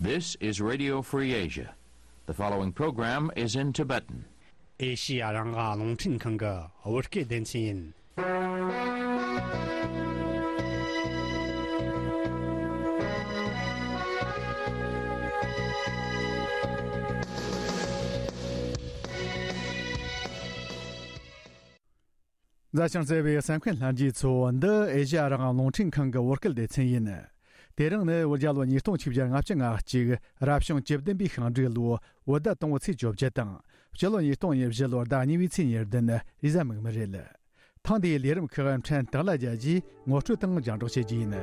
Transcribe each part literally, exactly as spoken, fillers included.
This is Radio Free Asia. The following program is in Tibetan. ཨེ་ཤི་ཡ་རང་དབང་རླུང་འཕྲིན་ཁང་གི་བོད་སྐད་སྡེ་ཚན་ཡིན། མཛའ་ཞིང་བརྩེ་བའི་གསན་མཁན་ལྷན་རྒྱས་ཚོ། འདི་ཨེ་ཤ་ཡ་རང་དབང་རླུང་འཕྲིན་ཁང་གི་བོད་སྐད་སྡེ་ཚན་ཡིན། དེ་རིང་ནི་བོད་རྒྱལ་ལོ་ཉིས་སྟོང་ཆིག་བརྒྱ་ལྔ་བཅུ་ང་གཅིག་རབ་བྱུང་བཅུ་བདུན་པའི་ཤིང་འབྲས་ལོའི་བོད་ཟླ་དང་པོའི་ཚེས་བཅོ་བརྒྱད་དང་། སྤྱི་ལོ་ཉིས་སྟོང་ཉེར་བཞི་ལོའི་ཟླ་གཉིས་པའི་ཚེས་ཉེར་བདུན་རེས་གཟའ་མིག་དམར་རེད། ཐེངས་འདིའི་ལས་རིམ་ཁག་ཕྲན་སྟག་ལྷ་རྒྱལ་གྱིས་ངོ་སྤྲོད་དང་རྒྱང་སྒྲོག་བྱེད་རྒྱུ་ཡིན།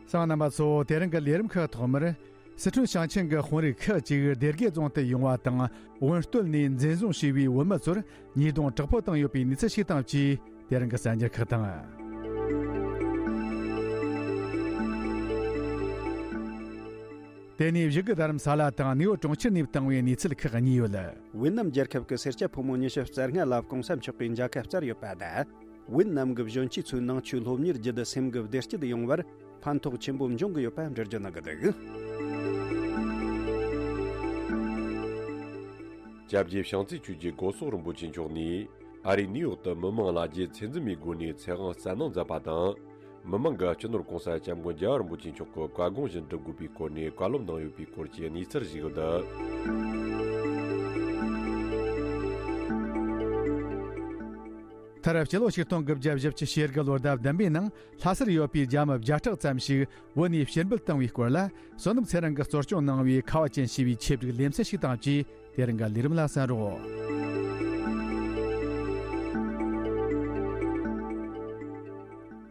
གསན་མཁན་རྣམ་པ་ཚོ། དེ་རིང་གི་ལས་རིམ་ཁག་ཐོག་མར། སི་ཁྲོན་ཞིང་ཆེན་གྱི་དཔོན་རིགས་ཁག་ཅིག་སྡེ་དགེ་རྫོང་དུ་ཡོང་བ་དང་། དབོན་སྟོད་ནས་འཛིན་བཟུང་བྱས་པའི་བོད་མི་ཚོར་ཉེས་རྡུང་དྲག་པོ་བཏང་ཡོད་པའི་གནས་ཚུལ་ཞིག་དང་བཅས། དེ་རིང་གི་གསར་འགྱུར་ཁག་དང་། དེ་ནས་བཞུགས་སྒར་རྡ་རམ་ས་ལ་དང་ནེའུ་ཡོག་གྲོང་ཁྱེར་ནས་བཏང་བའི་གནས་ཚུལ་ཁག་གཉིས་ཡོད། ཝེ་ནམ་རྒྱལ་ཁབ་ཀྱི་སེར་སྐྱ་ཕོ་མོ་ཉི་ཤུ་རྩ་ལྔ་ལ་གོང་ས་མཆོག་གིས་མཇལ་ཁ་བསྩལ་ཡོད་པ་དང་། ཝེ་ནམ་གྱི་གཞོན་སྐྱེས་ཚོའི་ནང་ཆོས་སློབ་གཉེར་བརྒྱུད་དེ་སེམས་ཀྱི་བདེ་སྐྱིད་ཡོང་བར་ཕན་ཐོགས་ཆེན་པོ་འབྱུང་གི་ཡོད་པ་འགྲེལ་བརྗོད་གནང་གི་འདུག། སྐྱབས་རྗེ་བྱང་རྩེ་ཆོས་རྗེ་སྒོ་སོག་རིན་པོ་ཆེ་མཆོག་ནས་ཨ་རིའི་ནིའུ་ཡོག་ཏུ་མི་མང་ལ་རྒྱའི་ཚད་འཛིན་མའི་སྒོ་ནས་ཚེ་དབང་སྩལ་གནང་མཛད་པ་དང་། མི་མང་གིས་སྤྱི་ནོར་༸གོང་ས་༸སྐྱབས་མགོན་རྒྱལ་བ་རིན་པོ་ཆེ་མཆོག་གི་བཀའ་དགོངས་བཞིན་སྒྲུབ་དགོས་པའི་སྐོར་ནས་བཀའ་སློབ་གནང་ཡོད་པའི་སྐོར་གྱི་གནས་ཚུལ་ཞིག་འདུག། མཐར་སྤྱི་ལོ་ཆིག་སྟོང་དགུ་བརྒྱ་བཞི་བཅུ་ཞེ་དགུ་ལོའི་ཟླ་བདུན་པའི་ནང་ལྷ་སར་ཡོད་པའི་རྒྱ་མི་བརྒྱ་ཕྲག་ཙམ་ཞིག་བོད་ནས་ཕྱིར་འབུད་བཏང་བའི་སྐོར་ལ། བསོད་ནམས་ཚེ་རིང་གིས་གཙོ་སྐྱོང་གནང་བའི་ཁ་བ་ཅན་ཞེས་པའི་ཆེད་བསྒྲིགས་ལེ་ཚན་ཞིག་དང་བཅས། དེ་རིང་གི་ལས་རིམ་ལ་གསན་རོགས།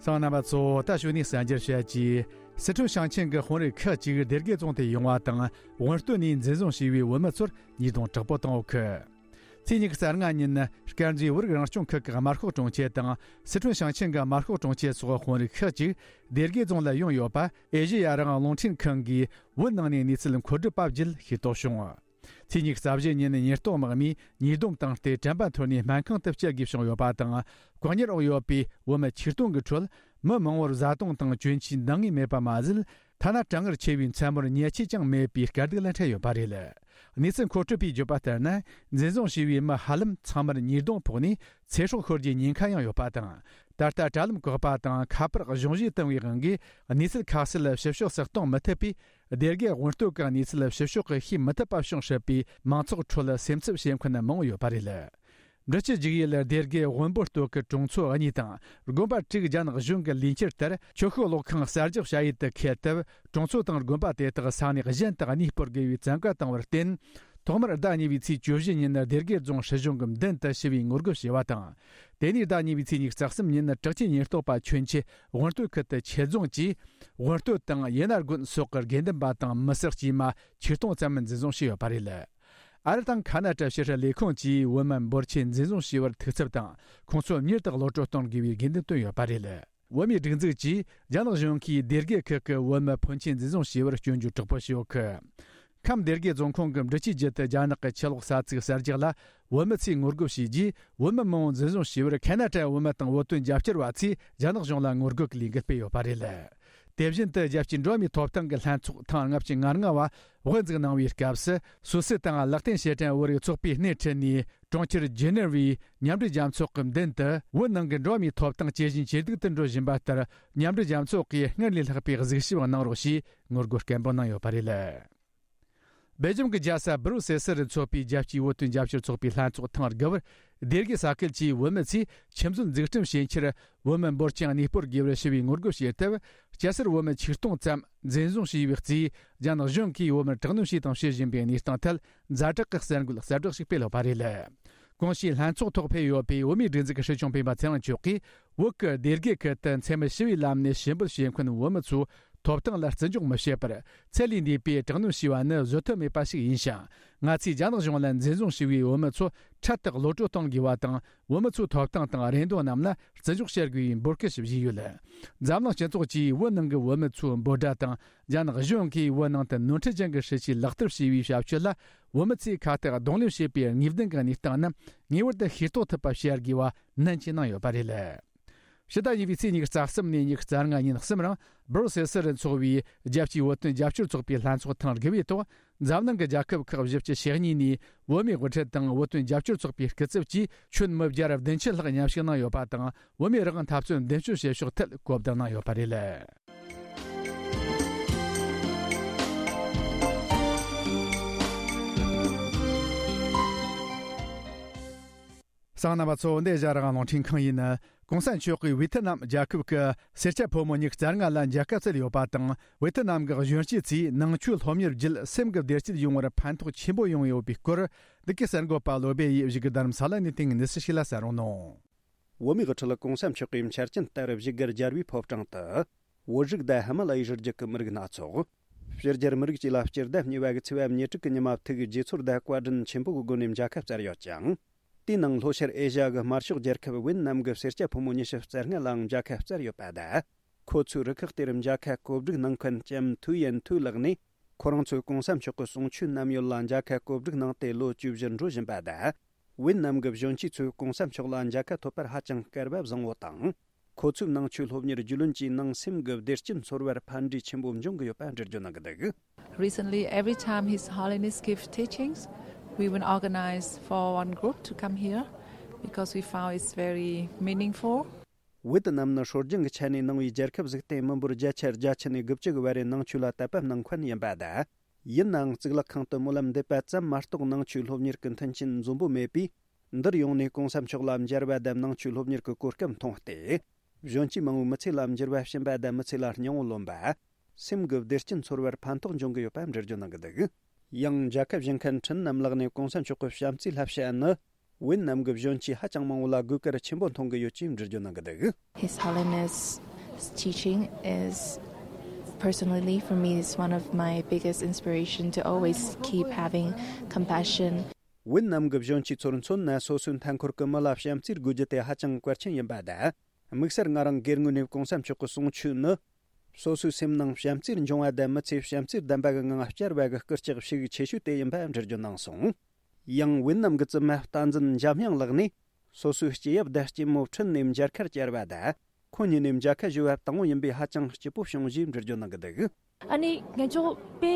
གསན་མཁན་རྣམ་པ་ཚོ། ད་གཞུག་ནས་གསར་འགྱུར་བཤད་རྒྱུ། སི་ཁྲོན་ཞིང་ཆེན་གྱི་དཔོན་རིགས་ཁག་ཅིག་སྡེ་དགེ་རྫོང་དུ་ཡོང་བ་དང་། དབོན་སྟོད་ནས་འཛིན་བཟུང་བྱས་པའི་བོད་མི་ཚོར་ཉེས་རྡུང་དྲག་པོ་བཏང་ཡོད་གི། ཚེས་ཉི་ཤུ་རྩ་ལྔ་ཉིན། དཀར་མཛེས་བོད་རིགས་རང་སྐྱོང་ཁུལ་གྱི་དམར་ཤོག་དྲུང་ཆེ་དང་། སི་ཁྲོན་ཞིང་ཆེན་གྱི་དམར་ཤོག་དྲུང་ཆེ་སོགས་དཔོན་རིགས་ཁག་ཅིག་སྡེ་དགེ་རྫོང་ལ་ཡོང་ཡོད་པ། ཨེ་ཤེ་ཡ་རང་དབང་རླུང་འཕྲིན་ཁང་གིས་བོད་ནང་ནས་གནས་ཚུལ་མཁོ་སྒྲུབ་པ་བརྒྱུད་ཤེས་རྟོགས་བྱུང་། ཚེས་ཉི་ཤུ་རྩ་བཞི་ཉིན་ཉེན་རྟོག་དམག་མིས་ཉེས་རྡུང་བཏང་སྟེ་དྲན་པ་འཐོར་ནས་སྨན་ཁང་དུ་བསྐྱལ་དགོས་བྱུང་ཡོད་པ་དང་། བཀག་ཉར་འོག་ཡོད་པའི་བོད་མི་ཆིག་སྟོང་གི་ཁྲོད། མི་མང་བོར་བཟའ་བཏུང་དང་གྱོན་ཆས་འདང་ངེས་མེད་པ་མ་ཟད། ཐ་ན་གྲང་ངར་ཆེ་བའི་མཚན་མོར་ཉལ་ཆས་ཀྱང་མེད་པའི་དཀའ་སྡུག་ལ་འཕྲད་ཡོད་པ་རེད། གནས་ཚུལ་མཁོ་སྤྲོད་པས་བརྗོད་པ་ལྟར་ན། འཛིན་བཟུང་བྱས་པའི་མི་ཧ་ལམ་ཚང་མར་ཉེས་རྡུང་ཕོག་ནས་ཚེ་སྲོག་ཤོར་རྒྱུའི་ཉེན་ཁ་ཡང་ཡོད་པ་དང་། ད་ལྟ་དྲ་ལམ་བཀག་པ་དང་ཁ་པར་གཞུང་བཞེས་བཏང་བའི་དབང་གིས་གནས་ཚུལ་ཁ་གསལ་ཞིབ་ཕྱོགས་སུ་གཏོང་མི་ཐུབ་པས། སྡེ་དགེ་དབོན་སྟོད་ཀྱི་གནས་ཚུལ་ཞིབ་ཕྱོགས་ཀྱིས་ཤེས་མི་ཐུབ་པ་བྱུང་སྲིད་པས། མང་ཚོགས་ཁྲོད་སེམས་འཚབ་བྱེད་མཁན་མང་བོ་ཡོད་པ་རེད། འབྲི་ཆུ་རྒྱུག་ཡུལ་སྡེ་དགེ་དབོན་པོ་སྟོད་ཀྱི་གྲོང་ཚོ་གཉིས་དང་། དགོན་པ་དྲུག་རྒྱ་ནག་གཞུང་གི་ལས་འཁྱུར་ལྟར་ཆོས་ཤུགས་གློག་ཁང་གསར་རྒྱག་བྱ་ཡུལ་དུ་འཁེལ་སྟབས། གྲོང་ཚོ་དང་དགོན་པ་དེ་དག་ས་གནས་གཞན་དུ་གནས་སྤོར་དགོས་པའི་བཙན་བཀའ་བཏང་བར་བརྟེན། ཐོག་མར་ཟླ་གཉིས་པའི་ཚེས་བཅུ་བཞི་ཉིན་སྡེ་དགེ་རྫོང་སྲིད་གཞུང་གི་མདུན་དུ་ཞི་བའི་ངོ་རྒོལ་བྱས་པ་དང་། དེ་ནས་ཟླ་གཉིས་པའི་ཚེས་ཉི་ཤུ་རྩ་གསུམ་ཉིན་དྲག་ཆས་ཉེན་རྟོག་པ་ཁྱོན་ཆེ་དབོན་སྟོད་ཁུལ་དུ་ཆེད་རྫོང་གིས། དབོན་སྟོད་དང་ཡེ་ན་དགོན་སོགས་ཀྱི་དགེ་འདུན་པ་དང་མི་སེར་དཀྱུས་མ་ཆིག་སྟོང་ཙམ་འཛིན་བཟུང་བྱས་ཡོད་པ་རེད། ཨ་རི་དང་ཁ་ན་ཏྲ་ཕྱི་སྲིད་ལས་ཁུངས་ཀྱིས་བོད་མི་འབོར་ཆེན་འཛིན་བཟུང་བྱས་པར་ཐུགས་འཚབ་དང་། ཁོང་ཚོ་མྱུར་དུ་གློད་གྲོལ་གཏོང་དགོས་པའི་དགོས་འདུན་བཏོན་ཡོད་པ་རེད། བོད་མིའི་སྒྲིག་འཛུགས་ཀྱིས་རྒྱ་ནག་གཞུང་གིས་སྡེ་དགེ་ཁུལ་གྱི་བོད་མི་ཕོན་ཆེན་འཛིན་བཟུང་བྱས་པར་སྐྱོན་བརྗོད་དྲག་པོ་བྱས་ཡོད་གི། ཁམས་སྡེ་དགེ་རྫོང་ཁོངས་ཀྱི་འབྲི་ཆུའི་རྒྱུད་དུ་རྒྱ་ནག་གི་ཆུ་གློག་ས་ཚིགས་གསར་རྒྱག་ལ་བོད་མི་ཚོས་ངོ་རྒོལ་བྱས་རྗེས། བོད་མི་མང་བོ་འཛིན་བཟུང་བྱས་པར་ཁ་ན་ཏྲ་བོད་མི་དང་བོད་དོན་རྒྱབ་སྐྱོར་བ་ཚོས་རྒྱ་ནག་གཞུང་ལ་ངོ་རྒོལ་གྱི་ལས་འགུལ་སྤེལ་ཡོད་པ་རེད། དེ་བཞིན་དུ་རྒྱལ་སྤྱིའི་འགྲོ་བ་མིའི་ཐོབ་ཐང་གི་ལྷན་ཚོགས་ཐེངས་ལྔ་བཅུ་ང་ལྔ་བ་དབུ་འཛུགས་གནང་བའི་སྐབས་སུ། སུད་སི་དང་ལེག་ཏེན་ཤེ་ཏན་བོད་རིགས་ཚོགས་པས་སྣེ་ཁྲིད་ནས། གྲོང་ཁྱེར་ཇི་ནེ་ཝའི་མཉམ་འབྲེལ་རྒྱལ་ཚོགས་ཀྱི་མདུན་དུ། བོད་ནང་གི་འགྲོ་བ་མིའི་ཐོབ་ཐང་ཇེ་ཞན་ཇེ་སྡུག་ཏུ་འགྲོ་བཞིན་པ་ལྟར། མཉམ་འབྲེལ་རྒྱལ་ཚོགས་ཀྱིས་སྔར་ལས་ལྷག་པའི་གཟིགས་ཞིབ་གནང་རོགས་ཞེས་ངོ་རྒོལ་སྐད་འབོད་གནང་ཡོད་པ་རེད། སྦེལ་ཇམ་གྱི་རྒྱལ་ས་སྦུ་རུ་སེལ་སི་རུ་འཚོགས་པའི་རྒྱལ་སྤྱིའི་བོད་དོན་རྒྱབ་སྐྱོར་ཚོགས་པའི་ལྷན་ཚོགས་ཐེངས་དགུ་པར། སྡེ་དགེ་ས་ཁུལ་གྱི་བོད་མི་ཚོས་ཆུ་མཛོད་འཛུགས་སྐྲུན་བྱེད་ཕྱིར། བོད་མི་འབོར་ཆེན་གནས་སྤོར་དགོས་པར་ཞུ་བའི་ངོ་རྒོལ་བྱས་སྟབས། སྐྱ་སེར་བོད་མི་ཆིག་སྟོང་ཙམ་འཛིན་བཟུང་བྱས་པའི་རྩིས། རྒྱ་ནག་གཞུང་གིས་བོད་མིར་དྲག་གནོན་བྱས་དང་བྱེད་བཞིན་པའི་གནས་སྟངས་ཐད། ཛ་དྲག་གི་གསར་འགོད་གསལ་བསྒྲགས་ཤིག་སྤེལ་ཡོད་པ་རེད། གོང་ཞུས་ལྷན་ཚོགས་ཐོག་ཕེབས་ཡོད་པའི་བོད་མིའི་སྒྲིག་འཛུགས་ཀྱི་སྲིད་སྐྱོང་སྤེན་པ་ཚེ་རིང་མཆོག་གིས། བོད་ཀྱི་སྡེ་དགེ་ཁུལ་དུ་འཚེ་མེད་ཞི་བའི་ལམ་ནས་ཞུ་འབོད་བྱེད་མཁན་བོད་མི་ཚོའི་ཐོབ་ཐང་ལ་བརྩི་འཇོག་མི་བྱེད་པར། ཚད་ལས་འདས་པའི་དྲག་གནོན་བྱས་པ་ནི་བཟོད་ཐབས་མེད་པ་ཞིག་ཡིན་ཞིང་། ང་ཚོས་རྒྱ་ནག་གཞུང་ལ་འཛིན་བཟུང་བྱས་པའི་བོད་མི་ཚོ་འཕྲལ་དུ་གློད་གྲོལ་གཏོང་དགོས་པ་དང་། བོད་མི་ཚོའི་ཐོབ་ཐང་དང་རེ་འདུན་རྣམས་ལ་བརྩི་འཇོག་བྱ་དགོས་པའི་འབོད་སྐུལ་ཞིག་བྱས་ཡོད། འཛམ་གླིང་སྤྱི་ཚོགས་ཀྱིས་བོད་ནང་གི་བོད་མི་ཚོའི་འབོད་སྒྲ་དང་། རྒྱ་ནག་གཞུང་གིས་བོད་ནང་དུ་ནོར་འཁྲུལ་ཅན་གྱི་སྲིད་ཇུས་ལག་བསྟར་བྱས་པའི་བྱ་སྤྱོད་ལ། བོད་མི་ཚོས་ཁ་གཏད་གདོང་ལེན་བྱེད་པའི་ངེས་གཏན་གྱི་གནས་སྟངས་རྣམས་ངེས་པར་དུ་ཤེས་རྟོགས་ཐུབ་པ་བྱ་དགོས་པ་ནན་གྱིས་གནང་ཡོད་པ་རེད། ཕྱི་ཟླ་གཉིས་པའི་ཚེས་ཉི་ཤུ་རྩ་གསུམ་ནས་ཉི་ཤུ་རྩ་ལྔ་ཉིན་གསུམ་རིང་སྦུར་སེལ་སི་རུ་འཚོགས་པའི་རྒྱལ་སྤྱིའི་བོད་དོན་རྒྱབ་སྐྱོར་ཚོགས་པའི་ལྷན་ཚོགས་ཐེངས་དགུ་པའི་ཐོག་འཛམ་གླིང་གི་རྒྱལ་ཁབ་ཁག་བཞི་བཅུ་ཞེ་གཉིས་ནས་བོད་མིའི་དབུ་ཁྲིད་དང་བོད་དོན་རྒྱབ་སྐྱོར་ཚོགས་པའི་སྐུ་ཚབ་བཅས་ཁྱོན་མི་བརྒྱ་ར་བདུན་ཅུ་ལྷག་མཉམ་ཞུགས་གནང་ཡོད་པ་དང་། བོད་མིའི་རང་དབང་འཐབ་རྩོད་མདུན་སྐྱོད་བྱེད་ཕྱོགས་ཐད་གོ་བསྡུར་གནང་ཡོད་པ་རེད། གསན་མཁན་རྣམ་པ་ཚོ། འདི་ཨེ་ཤ་ཡ་རང་དབང་རླུང་འཕྲིན་ཁང་ཡིན། གོང་ས་མཆོག་གིས་ཝེ་ཐི་ནམ་རྒྱལ་ཁབ་ཀྱི་སེར་སྐྱ་ཕོ་མོ་ཉི་ཤུ་རྩ་ལྔ་ལ་མཇལ་ཁ་བསྩལ་ཡོད་པ་དང་། ཝེ་ཐི་ནམ་གྱི་གཞོན་སྐྱེས་ཚོས་ནང་ཆོས་སློབ་གཉེར་བརྒྱུད་སེམས་ཀྱི་བདེ་སྐྱིད་ཡོང་བར་ཕན་ཐོགས་ཆེན་པོ་ཡོང་ཡོད་པའི་སྐོར། འདི་གའི་གསར་འགོད་པ་བློ་བྷེ་ཡིས་བཞུགས་སྒར་རྡ་རམ་ས་ལ་ནས་བཏང་གནས་ཚུལ་ཞིག་ལ་གསན་རོགས་གནང་། བོད་མིའི་དབུ་ཁྲིད་གོང་ས་མཆོག་གིས་འཆར་ཅན་ལྟར་བཞུགས་སྒར་རྒྱལ་བའི་ཕོ་བྲང་དུ། བོད་རིགས་དང་ཧི་མ་ལ་ཡའི་རི་རྒྱུད་ཀྱི་མི་རིགས་སྣ་ཚོགས། ཕྱི་རྒྱལ་མི་རིགས་བཅས་ལ་སྤྱི་ཟླ་གཉིས་པ་གི་ཚེས་པ་ཉེར་དྲུག་གི་ཉི་མ་ཐུགས་དགྱེས་ཚོར་དང་བཀའ་དྲིན་ཆེན་པོ་གི་སྒོ་ནས་མཇལ་ཁ་བསྩལ་ཡོད་ཅིང་། དེའི་ནང་ལྷོ་ཤར་ཨེ་ཤ་ཡ་གི་དམར་ཤོག་རྒྱལ་ཁབ་ཝེ་ནམ་གྱི་སེར་སྐྱ་ཕོ་མོ་ཉི་ཤུ་རྩ་ལྔ་ལའང་མཇལ་ཁ་བསྩལ་ཡོད་པ་དང་། ཁོ་ཚོའི་རུ་ཁག་དེར་མཇལ་ཁ་གོ་སྒྲིག་གནང་མཁན་ལྕམ་ཐུའུ་ཡན་ཐུའུ་ལགས་ནས། ཁོ་རང་ཚོས་གོང་ས་མཆོག་གི་གསུང་ཆོས་ནམ་ཡོད་ལ་མཇལ་ཁ་གོ་སྒྲིག་གནང་སྟེ་ལོ་བཅུ་བཞི་འགྲོ་བཞིན་པ་དང་། ཝེ་ནམ་གྱི་གཞོན་སྐྱེས་ཚོས་གོང་ས་མཆོག་ལ་མཇལ་ཁ་ཐོབ་པར་ཧ་ཅང་སྐལ་བ་བཟང་བོ་དང་། ཁོ་ཚོའི་ནང་ཆོས་སློབ་གཉེར་རྒྱུས་ལོན་གྱིས་ནང་སེམས་ཀྱི་བདེ་སྐྱིད་འཚོལ་བར་ཕན་འབྲས་ཆེན་པོ་འབྱུང་གི་ཡོད་པ་འགྲེལ་བརྗོད་གནང་གི་འདུག། Recently, every time His Holiness give teachings, we will organize for one group to come here because we found it's very meaningful. ཝེ་ཏི་ནམ་ནི་སྲོལ་རྒྱུན་གྱི་ཆ་ནས་ནང་པའི་རྒྱལ་ཁབ་ཟིག་སྟེ། མི་འབོར་བརྒྱ་ཆ་བརྒྱད་ཅུ་ནས་དགུ་བཅུ་གི་བར་རེ་ནང་ཆོས་ལ་དད་པ་གནང་མཁན་ཡིན་པ་དང་། ཡིན་ནའང་གཙུག་ལག་ཁང་དུ་སྨོན་ལམ་འདེབས་པ་ཙམ་མ་གཏོགས་ནང་ཆོས་སློབ་གཉེར་གྱི་མཐུན་རྐྱེན་འཛོམས་པོ་མེད་པས། འདིར་ཡོང་ནས་གོང་ས་མཆོག་ལ་མཇལ་བ་དང་ནང་ཆོས་སློབ་གཉེར་གྱི་གོ་སྐབས་མཐོང་སྟེ། གཞོན་སྐྱེས་མང་བོའི་མི་ཚེ་ལ་འགྱུར་བ་ཕྱིན་པ་དང་མི་ཚེ་ལ་སྙིང་བོ་ལོན་པ། སེམས་ཀྱི་བདེ་སྐྱིད་འཚོལ་བར་ཕན་ཐོགས་འབྱུང་གི་ཡོད་པ་འགྲེལ་བརྗོད་གནང་གི་འདུག། ཡང་མཇལ་ཁ་བཞེས་མཁན་ཁྲིན་ནམ་ལགས་ནས་གོང་ས་མཆོག་གི་བྱམས་བརྩེའི་བསླབ་བྱ་ནི། ཝེ་ནམ་གྱི་གཞོན་སྐྱེས་ཧ་ཅང་མང་བོ་ལ་དགོས་གལ་ཆེན་པོ་མཐོང་གི་ཡོད་ཅེས་འགྲེལ་བརྗོད་གནང་གི་འདུག། His Holiness teaching is personally for me is one of my biggest inspiration to always keep having compassion. ཝེ་ནམ་གྱི་གཞོན་སྐྱེས་ཚོར་མཚོན་ན། སོ་སོའི་མཐའ་འཁོར་གྱི་མི་ལ་བྱམས་བརྩེ་དགོས་རྒྱུ་དེ་ཧ་ཅང་གལ་ཆེན་ཡིན་པ་དང་། དམིགས་བསལ་ང་རང་སྒེར་ངོས་ནས་གོང་ས་མཆོག་གི་གསུང་ཆོས་ནི། སོ་སོའི་སེམས་ནང་བྱམས་བརྩེ་འབྱུང་བ་དང་མི་ཚེ་བྱམས་བརྩེ་ལྡན་པ་གི་ངང་བསྐྱལ་བ་གི་སྐུལ་ལྕག་ཤུགས་ཆེ་ཤོས་དེ་ཡིན་པ་འགྲེལ་བརྗོད་གནང་སོང་། ཡང་ཝེ་ནམ་གྱི་བཙུན་མ་བསྟན་འཛིན་འཇམ་དབྱངས་ལགས་ནས། སོ་སོའི་སྐྱེས་ཡབ་དང་སྐྱེས་མོ་ཁྲིད་ནས་མཇལ་ཁར་བཅར་བ་དང་། ཁོང་གཉིས་ནས་མཇལ་ཁ་ཞུ་བ་དང་པོ་ཡིན་པས་ཧ་ཅང་སྐྱིད་པོ་བྱུང་ཞེས་འགྲེལ་བརྗོད་གནང་གི་འདུག། ཨ་ནི་ང་ཚོ་དཔེ་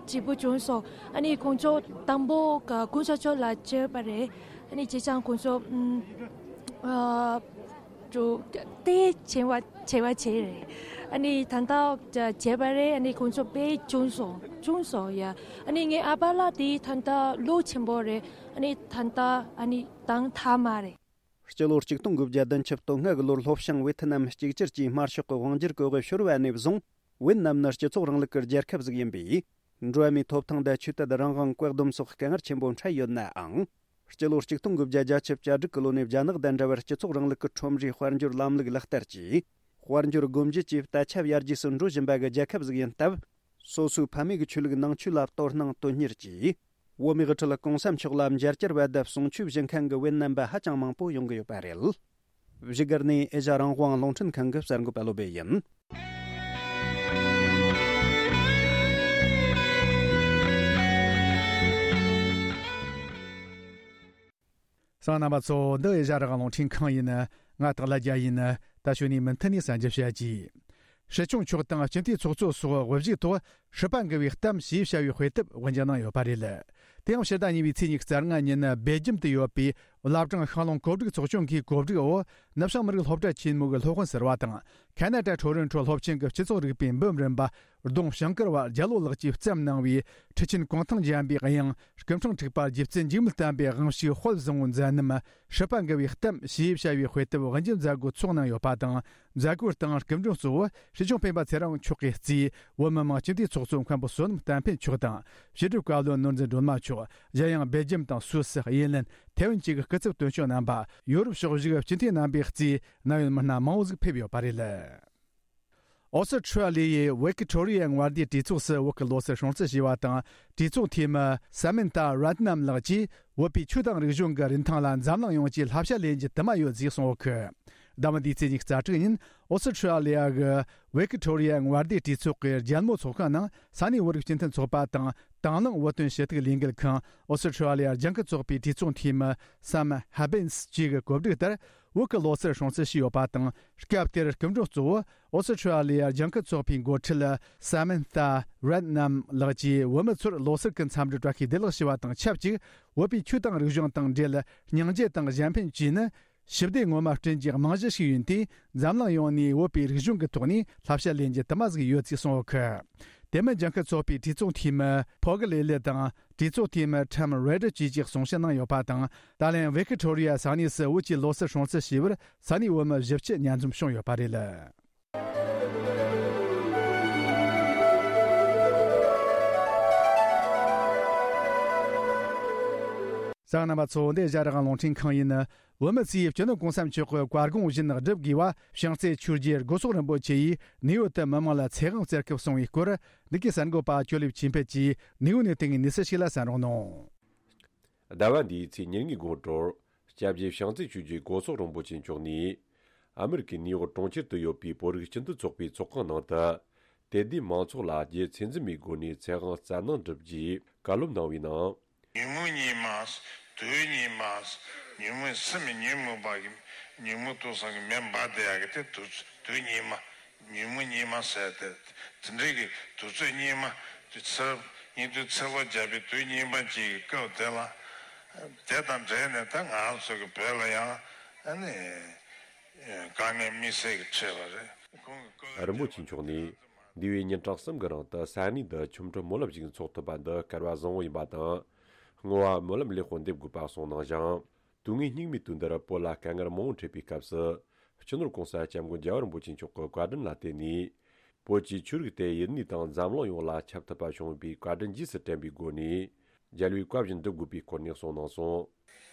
སྐྱིད་པོ་བྱུང་སོང་། ཨ་ནི་ཁོང་ཚོ་དང་པོ་ག་གོང་ས་མཆོག་ལ་མཇལ་བ་རེད། ཨ་ནི་བྱས་ཙང་ཁོང་ཚོ་ཨ་ཅོ་དེ་བྱེད་པ་བྱེད་པ་བྱས་རེད། ཨ་ནི་ད་ལྟ་བྱས་པ་རེད། ཨ་ནི་ཁོང་ཚོ་དཔེ་བྱུང་སོང་བྱུང་སོང་ཡ། ཨ་ནི་ངའི་ཨ་ཕ་ལགས་དེ་ད་ལྟ་ལོ་ཆེན་པོ་རེད། ཨ་ནི་ད་ལྟ་ཨ་ནི་དང་ཐ་མ་རེད། སྤྱི་ལོ་ཆིག་སྟོང་དགུ་བརྒྱ་བདུན་ཅུ་དོན་ལྔ་གི་ལོར་ལྷོ་བྱང་ཝེ་ཐི་ནམ་གཅིག་གྱུར་གྱིས་དམར་ཤོག་གི་དབང་སྒྱུར་གྱི་འོག་ཤོར་བ་ནས་བཟུང་། ཝེ་ནམ་ནི་སྤྱི་ཚོགས་རིང་ལུགས་ཀྱི་རྒྱལ་ཁབ་ཟིག་ཡིན་པས། འགྲོ་བ་མིའི་ཐོབ་ཐང་དང་ཆོས་དད་རང་དབང་བཀག་སྡོམ་སོགས་དཀའ་ངལ་ཆེན་པོ་འཕྲད་ཡོད་ནའང་། སྤྱི་ལོ་ཆིག་སྟོང་དགུ་བརྒྱ་བརྒྱད་ཅུ་གྱ་དྲུག་གི་ལོ་ནས་རྒྱ་ནག་དང་འདྲ་བར་སྤྱི་ཚོགས་རིང་ལུགས་ཀྱི་ཁྲོམ་རའི་དཔལ་འབྱོར་ལམ་ལུགས་ལག་བསྟར་གྱིས། དཔལ་འབྱོར་སྒོ་འབྱེད་ཀྱི་ད་ཆ་ཡར་རྒྱས་སུ་འགྲོ་བཞིན་པ་གི་རྒྱལ་ཁབ་ཟིག་ཡིན་སྟབས། སོ་སོའི་ཕ་མེས་ཀྱི་ཆོས་ལུགས་ནང་ཆོས་ལ་དོ་སྣང་དོན་གཉེར་གྱིས། བོད་མིའི་དབུ་ཁྲིད་གོང་ས་མཆོག་ལ་མཇལ་བཅར་བ་དང་གསུང་ཆོས་བཞེས་མཁན་གྱི་ཝེ་ནམ་པ་ཧ་ཅང་མང་པོ་ཡོང་གི་ཡོད་པ་རེད། བཞུགས་སྒར་ནས་ཨེ་ཤ་རང་དབང་རླུང་འཕྲིན་ཁང་གི་གསར་འགོད་པ་བློ་བྷེ་ཡིན། གསན་མཁན་རྣམ་པ་ཚོ། འདི་ཨེ་ཤ་རང་དབང་རླུང་འཕྲིན་ཁང་ཡིན། ང་སྟག་ལྷ་རྒྱལ་ཡིན། ད་གཞུག་ནས་མུ་མཐུད་ནས་གསན་རྒྱུ་བྱ་རྒྱུ། སྲིད་སྐྱོང་མཆོག་དང་སྤྱི་འཐུས་ཚོགས་གཙོ་སོགས་དབུ་བཞུགས་ཐོག་སྲིད་པ་འགུལ་བའི་གཏམ་ཞེས་བྱ་བའི་དཔེ་དེབ་དབུ་འབྱེད་གནང་ཡོད་པ་རེད། དེ་ཡང་ཕྱི་ཟླ་གཉིས་པའི་ཚེས་ཉི་ཤུ་རྩ་ལྔ་ཉིན་སྦེལ་ཇམ་དུ་ཡོད་པའི་བླ་བྲང་ཤང་ལུང་གོ་སྒྲིག་ཚོགས་ཆུང་གིས་གོ་སྒྲིག་འོག་ནུབ་བྱང་མི་རིགས་སློབ་གྲྭ་ཆེན་མོ་གི་སློབ་དཔོན་ཟུར་པ་དང་། ཁ་ན་ཌ་ཊོ་རོན་ཊོ་སློབ་ཆེན་གྱི་སྤྱི་ཚོགས་རིག་པའི་འབུམ་རམས་པ་ལྡོང་ཞང་དཀར་བ་རྒྱལ་ལོ་ལགས་ཀྱིས་བརྩམས་གནང་བའི་ཁྲི་ཆེན་གུང་ཐང་འཇམ་པའི་དབྱངས། སྐུ་ཕྲེང་དྲུག་པ་རྗེ་བཙུན་འཇིགས་མེད་བསྟན་པའི་དབང་ཕྱུག་དཔལ་བཟང་པོའི་མཛད་རྣམ། སྲིད་པ་འགུལ་བའི་གཏམ་ཞེས་བྱ་བའི་དཔེ་དེབ་དབུ་འབྱེད་མཛད་སྒོ་འཚོགས་གནང་ཡོད་པ་དང་། མཛད་སྒོའི་སྟེང་སྐུ་མགྲོན་གཙོ་བོ་སྲིད་སྐྱོང་སྤེན་པ་ཚེ་རིང་མཆོག་གིས་གཙོས་བོད་མི་མང་སྤྱི་འཐུས་ཚོགས་གཙོ་མཁན་པོ་བསོད་ནམས་བསྟན་འཕེལ་མཆོག་དང་། ཕྱི་དྲིལ་བཀའ་བློན་ནོར་འཛིན་སྒྲོལ་མ་མཆོག། གཞན་ཡང་སྦེལ་ཇམ་དང་སུད་སི། ཨེར་ལན། ཐེ་ཝན་བཅས་ཀྱི་སྐུ་ཚབ་དོན་གཅོད་རྣམ་པ། ཡོ་རོབ་ཕྱོགས་བཞུགས་སྤྱི་འཐུས་རྣམ་པའི་གཙོས་ན་ཡོད་མི་སྣ་མང་བོ་ཟིག་ཕེབས་ཡོད་པ་རེད། ཨོ་སི་ཁྲུ་ལི་ཡའི་ཝི་ཀི་ཊོ་རི་ཡ་མངའ་སྡེའི་གྲོས་ཚོགས་སུ་བོད་ཀྱི་ལོ་གསར་སྲུང་བརྩི་ཞུས་པ་དང་། གྲོས་ཚོགས་འཐུས་མི་ས་མན་ཐ་རཏ་ནམ་ལགས་ཀྱིས་བོད་པའི་ཆོས་དང་རིག་གཞུང་གི་རིན་ཐང་ལ་འཛམ་གླིང་ཡོངས་ཀྱིས་བསླབ་བྱ་ལེན་རྒྱུ་དུ་མ་ཡོད་ཅེས་གསུངས་ཡོད་ཀི། ཟླ་བ་འདིའི་ཚེས་ཉི་ཤུ་རྩ་དྲུག་ཉིན་ཨོ་སི་ཁྲུ་ལི་ཡ་གི་ཝི་ཀི་ཊོ་རི་ཡ་མངའ་སྡེའི་གྲོས་ཚོགས་ཀྱི་རྒྱལ་མོ་ཚོགས་ཁང་ནང་ས་གནས་བོད་རིགས་སྤྱི་མཐུན་ཚོགས་པ་དང་། དང་བླངས་བོད་དོན་ཞུ་གཏུག་ལས་འགུལ་ཁང་། ཨོ་སི་ཁྲུ་ལི་ཡ་ལྗང་ཁུ་ཚོགས་པའི་གྲོས་ཚོགས་འཐུས་མི་སམ་ཧ་བིན་སི་བཅས་ཀྱི་གོ་སྒྲིག་ལྟར། བོད་ཀྱི་ལོ་སར་སྲུང་བརྩི་བྱས་ཡོད་པ་དང་། སྐབས་དེར་སྐུ་མགྲོན་གཙོ་བོ་ཨོ་སི་ཁྲུ་ལི་ཡ་ལྗང་ཁུ་ཚོགས་པའི་འགོ་ཁྲིད་Samantha Redknapp ལགས་ཀྱིས་བོད་མི་ཚོར་ལོ་སར་གྱི་འཚམས་འདྲི་བཀྲ་ཤིས་བདེ་ལེགས་ཞུ་བ་དང་ཆབས་ཅིག་བོད་པའི་ཆོས་དང་རིག་གཞུང་དང་འབྲེལ་སྙིང་རྗེ་དང་གཞན་ཕན་བཅས་ནི་ཞི་བདེ་ངོ་མ་བསྐྲུན་རྒྱུའི་རྨང་གཞི་ཞིག་ཡིན་དུས། འཛམ་གླིང་ཡོངས་ནས་བོད་པའི་རིག་གཞུང་གི་ཐོག་ནས་བསླབ་བྱ་ལེན་རྒྱུ་དུ་མ་ཟིག་ཡོད་ཅེས་གསུངས་ཡོད་ཁུལ། དེ་མིན་ལྗང་ཁུ་ཚོགས་པའི་གྲོས་ཚོགས་འཐུས་མི་ཕོ་གི་ལེ་ལི་དང་གྲོས་ཚོགས་འཐུས་མི་Tom Ryder བཅས་ཀྱིས་གསུང་བཤད་གནང་ཡོད་པ་དང་། ད་ལན་Victoria ས་གནས་སུ་བོད་ཀྱི་ལོ་སར་སྲུང་བརྩི་བྱས་པར་ས་གནས་བོད་མི་བཞི་བཅུ་མཉམ་འཛོམས་བྱུང་ཡོད་པ་རེད། གསན་མཁན་རྣམ་པ་ཚོ། འདི་ཨེ་ཤ་ཡ་རང་དབང་རླུང་འཕྲིན་ཁང་ཡིན། བོད་མི་ཚོས་སྤྱི་ནོར་༸གོང་ས་མཆོག་གི་བཀའ་དགོངས་བཞིན་བསྒྲུབ་དགོས་པ། བྱང་རྩེ་ཆོས་རྗེ་སྒོ་སོག་རིན་པོ་ཆེ་ཡིས་ནིའུ་ཡོག་ཏུ་མི་མང་ལ་ཚེ་དབང་སྩལ་སྐབས་གསུངས་པའི་སྐོར། འདི་གའི་གསར་འགོད་པ་ཅོ་ལེབ་ཆོས་འཕེལ་གྱིས་ནིའུ་ཡོག་ནས་བཏང་བའི་གནས་ཚུལ་ཞིག་ལ་གསན་རོགས་གནང་། ཟླ་བ་འདིའི་ཚེས་ཉེར་གཉིས་དགོང་དྲོར་སྐྱབས་རྗེ་བྱང་རྩེ་ཆོས་རྗེ་སྒོ་སོག་རིན་པོ་ཆེ་མཆོག་ནས་ཨ་མི་རི་ཀའི་ནིའུ་ཡོག་གྲོང་ཁྱེར་དུ་ཡོད་པའི་བོད་རིགས་སྤྱི་མཐུན་ཚོགས་པའི་ཚོགས་ཁང་ནང་དུ། དད་ལྡན་མང་ཚོགས་ལ་རྒྱུ་ཚད་འཛིན་མེད་སྒོ་ནས་ཚེ་དབང་སྩལ་གནང་གྲུབ་རྗེས་བཀའ་སློབ་གནང་བའི་ནང་། ཉོན་མོངས་གཉིས་མ། དུག་གཉིས་མ། ཉོན་མོངས་སེམས་ཉོན་མོངས་པ་གི་ཉོན་མོངས་དུག་གསུམ་གྱི་མེ་འབར་བསྡད་ཡག་གི་དེ་དུག་དུག་གཉིས་མ། ཉོན་མོངས་གཉིས་མ་ཟེར་ཏེ། དེ་འདྲའི་གི་དུག་རྩུབ་གཉིས་མ་དེ་ཚེ་སྙིགས་དུས་ཚེ་ལོ་བརྒྱ་པའི་དུག་གཉིས་མ་གཅིག་གི་སྐབས་དེ་ལ། དེ་དང་འབྲེལ་ནས་ད་ང་ཚོ་གི་བོད་ལ་ཡང་ཨ་ནི་དཀའ་ངལ་དམིགས་བསལ་གྱི་འཕྲད་པ་རེད། ཁོང་གི་སྐུ། རིན་པོ་ཆེ་མཆོག་ནས་འདས་པའི་ཉིན་གྲངས་གསུམ་གྱི་རིང་དུ་ས་གནས་འདི་ཆོ་འཕྲུལ་སྨོན་ལམ་ཞིག་འཚོགས་ཐུབ་པ་འདི་སྐལ་བ་བཟང་བོ་ཡིན་པ་དང་། བསྔོ་བ་སྨོན་ལམ་ལེགས་པོ་འདེབས་དགོས་པ་གསུངས་གནང་ཞིང་། དུས་ངན་སྙིགས་མའི་དུས་འདིར་བོད་ལ་དཀའ་ངལ་མང་པོ་འཕྲད་པའི་སྐབས་སུ། སྤྱི་ནོར་༸གོང་ས་༸སྐྱབས་མགོན་རྒྱལ་བ་རིན་པོ་ཆེ་མཆོག་གི་བཀའ་དྲིན་ལ་བརྟེན་ནས། བོད་ཀྱི་ཆོས་རིག་དེ་ཡུལ་དངོས་དང་འཛམ་གླིང་ཡོངས་ལ་ཁྱབ་ཐུབ་པ་བྱུང་བའི་བཀའ་དྲིན་རྗེས་སུ་དྲན་པའི་སྒོ་ནས། རྒྱལ་བའི་བཀའ་བཞིན་སྒྲུབ་དགོས་པའི་སྐོར་ནས་གསུངས་གནང་སོང་།